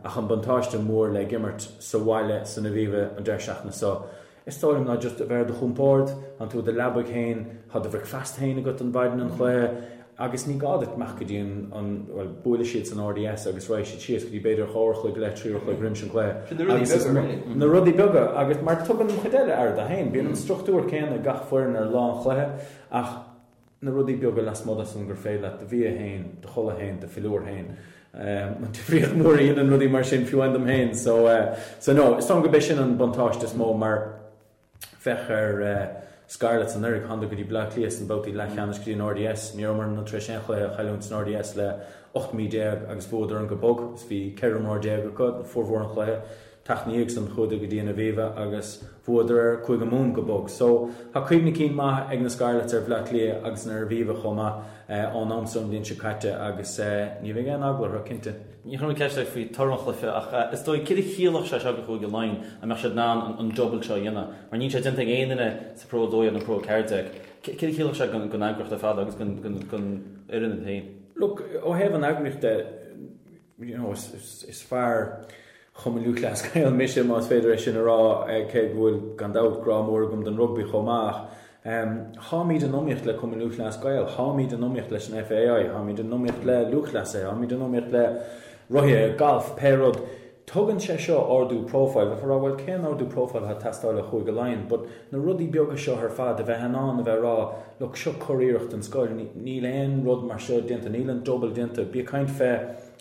Ach an buntáiste mór le ag imirt sa bhaile san Aviva an deireadh seachtaine seo, Is dóigh liom ná just a bheith ar do chompord, tánn tú i do leabaidh féin, tá do bhricfeasta féin agat an mhaidin an chluiche agus ní gá duit imeacht go dtí an, an, bhuel, buailfidh siad san RDS agus raghaidh siad síos go dtí b'fhéidir 2 uair a chloig go leith, 3 uair a chloig roimis an gcluiche. Sin na rudaí beaga, really. Na rudaí beaga agus mar tugann an chuid eile aire dó féin, bíonn an struchtúr céanna ag gach foireann ar lá an chluiche ach na rudaí beaga lasmuigh de san gur féidir leat do bhia féin, do chodladh féin, do philiúr féin, an difríocht mór a dhéanann rudaí mar sin fiú amháin dom féin. So, so no, is dóigh liom gurb é sin an buntáiste is mó mar féach ar Scarlets anuraidh, thánadar go dtí Bleá Cliath sna babhtaí leathcheannais go dtí an RDS, ní rabhamar tar éis aon chluiche a chailliúint san RDS le 18 mí agus bhuadar an go bog is bhí 14 imreoir acu formhór an chluiche. Tseachtain ina dhiaidh san chuadar go dtí an Aviva agus bhuadar ar Chúige Mumhan go bog. So, tá cuimhne cinn maith ag na Scarlets ar Bhleá Cliath agus ar an Aviva chomh maith ón am san an bhliain seo caite agus ní bheidh aon eagla orthu, cinnte. Ní chuirfidh mé ceist ort faoi toradh an chluiche ach is dóigh céard a chiallódh sé seo do Chúige Laighean an mbeadh siad in ann an double seo a dhéanamh mar níl sé déanta ag aon duine sa Pro 12 nó Pro 14. Céard a chiallódh sé don eagraíocht ar fad agus don fhoireann féin? Look, ó thaobh an eagraíocht de, you know, is fear Chumann Lúthchleas Gael mise, más féidir é sin a rá, cé go bhfuil, gan dabht, grá mór agam don rugbaí chomh maith. Táimid in iomaíocht le Cumann Lúthchleas Gael, táimid in iomaíocht leis an FAI, táimid in iomaíocht le lúthchleasaithe, táimid in iomaíocht le rothaithe, galf, pé rud. Tugann sé seo ardú profile. Bheifeá ag rá, bhuel, cén ardú profile atá ag teastáil ó Chúige Laighean? But na rudaí beaga seo ar fad, a bheith in ann a bheith ag rá, look, seo curiarracht den scoil, níl aon rud mar seo déanta, níl an double déanta. Bí ag caint fé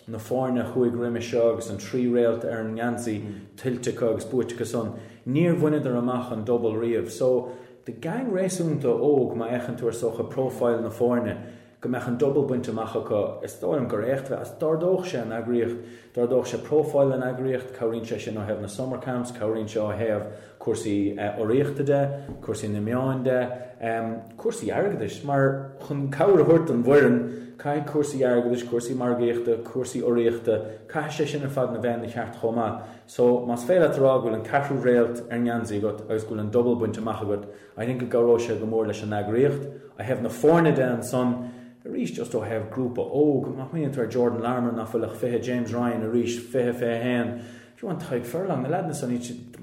na foirne a chuaigh roimis seo agus an trí réalt ar an ngeansaí tuillte acu agus buaite acu san, níor bhaineadar amach an double riamh. So, do gang réasúnta óg, má fhéachann tú ar is dócha profile na foirne, go mbeadh an double bainte amach acu, is dóigh liom gur éacht a bheadh, d'ardódh sé an eagraíocht, d'ardódh sé profile an eagraíocht, cabhraíonn sé sin ó thaobh na summer camps, cabhraíonn sé ó thaobh cúrsaí urraíochta de, cúrsaí na meáin de, cúrsaí airgeadais, mar chun cabhair a thabhairt don bhfoireann, caithfidh cúrsaí airgeadais, cúrsaí margaíochta, cúrsaí urraíochta, caithfidh sé sin ar fad a bheith ina cheart chomh maith. So, más féidir leat a rá go bhfuil an ceathrú réalt ar an ngeansaí agat agus go bhfuil an double bainte amach agat, I think go gcabhróidh sé go mór leis an eagraíocht. Ó thaobh na foirne de ansan, arís just ó thaobh grúpa óg, má smaoiníonn tú ar Jordan Larmour nach bhfuil ach 20, James Ryan arís 20, 21, fiú amháin Tadhg Furlong, na leaideanna san,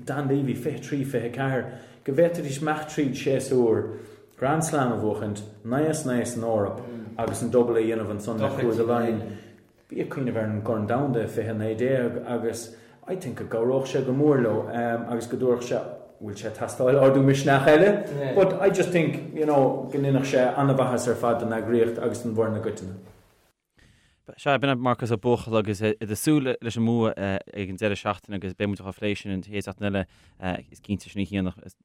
Dan Leavy 23, 24, go bhféadfaidís imeacht tríd séasúr Grand Slam a bhuachaint, 9 as 9 san Eoraip agus an double a dhéanamh ansan le Cúige Laighean. Bí ag cuimhneamh ar an gCorn Domhanda i 2019 agus I think go gcabhródh sé go mór leo agus go dtabharfadh sé, bhfuil sé ag teastáil ardú misneach eile? But I just think, you know, go ndéanfadh sé an-mhaitheas ar fad don eagraíocht agus don bhfoireann i gcoitinne. Sea, b'in é Marcas Ó Buachalla agus ag súil leis an mbua ag an deireadh seachtaine agus beidh muid á phlé sin an chéad seachtain eile is cinnte sin oíche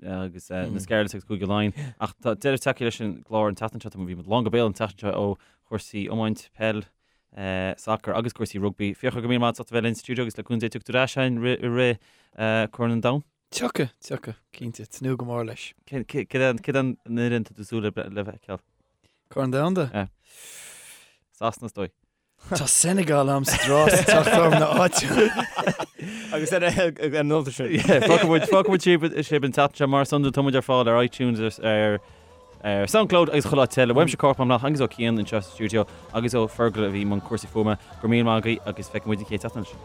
agus na Scarlets agus Cúige Laighean. Ach tá deireadh tagtha leis an gclár an tseachtain seo, bhí muid lán go béal an tseachtain seo ó chúrsaí iomáint, peil, sacar agus cúrsaí rugbaí. Fiachra, go raibh míle maith agat as ucht a bheith linn sa stiúideo agus le cúnamh Dé tiocfaidh tú ar ais againn i rith Corn an Domhain. Tiocfaidh, tiocfaidh, cinnte, tnúth go mór leis. Cé an fhoireann tá tú súil le feiceáil? Corn Domhanda? Yeah. Sasana is dóigh. Tá Senegal a'm sa dtráth sa teach orm na áite. Agus ar an nóta sin. Fágfaidh muid sibh an tseachtain seo mar is iondúil tá muid ar fáil ar iTunes ar ar Soundcloud agus chuile áit eile. Uaimse Cormac Mac Mathúna agus ó Cian anseo sa stiúideo agus ó Fergal a bhí i mbun cúrsaí fuaime. Go raibh míle maith agaibh agus feicfidh muid an chéad tseachtain eile.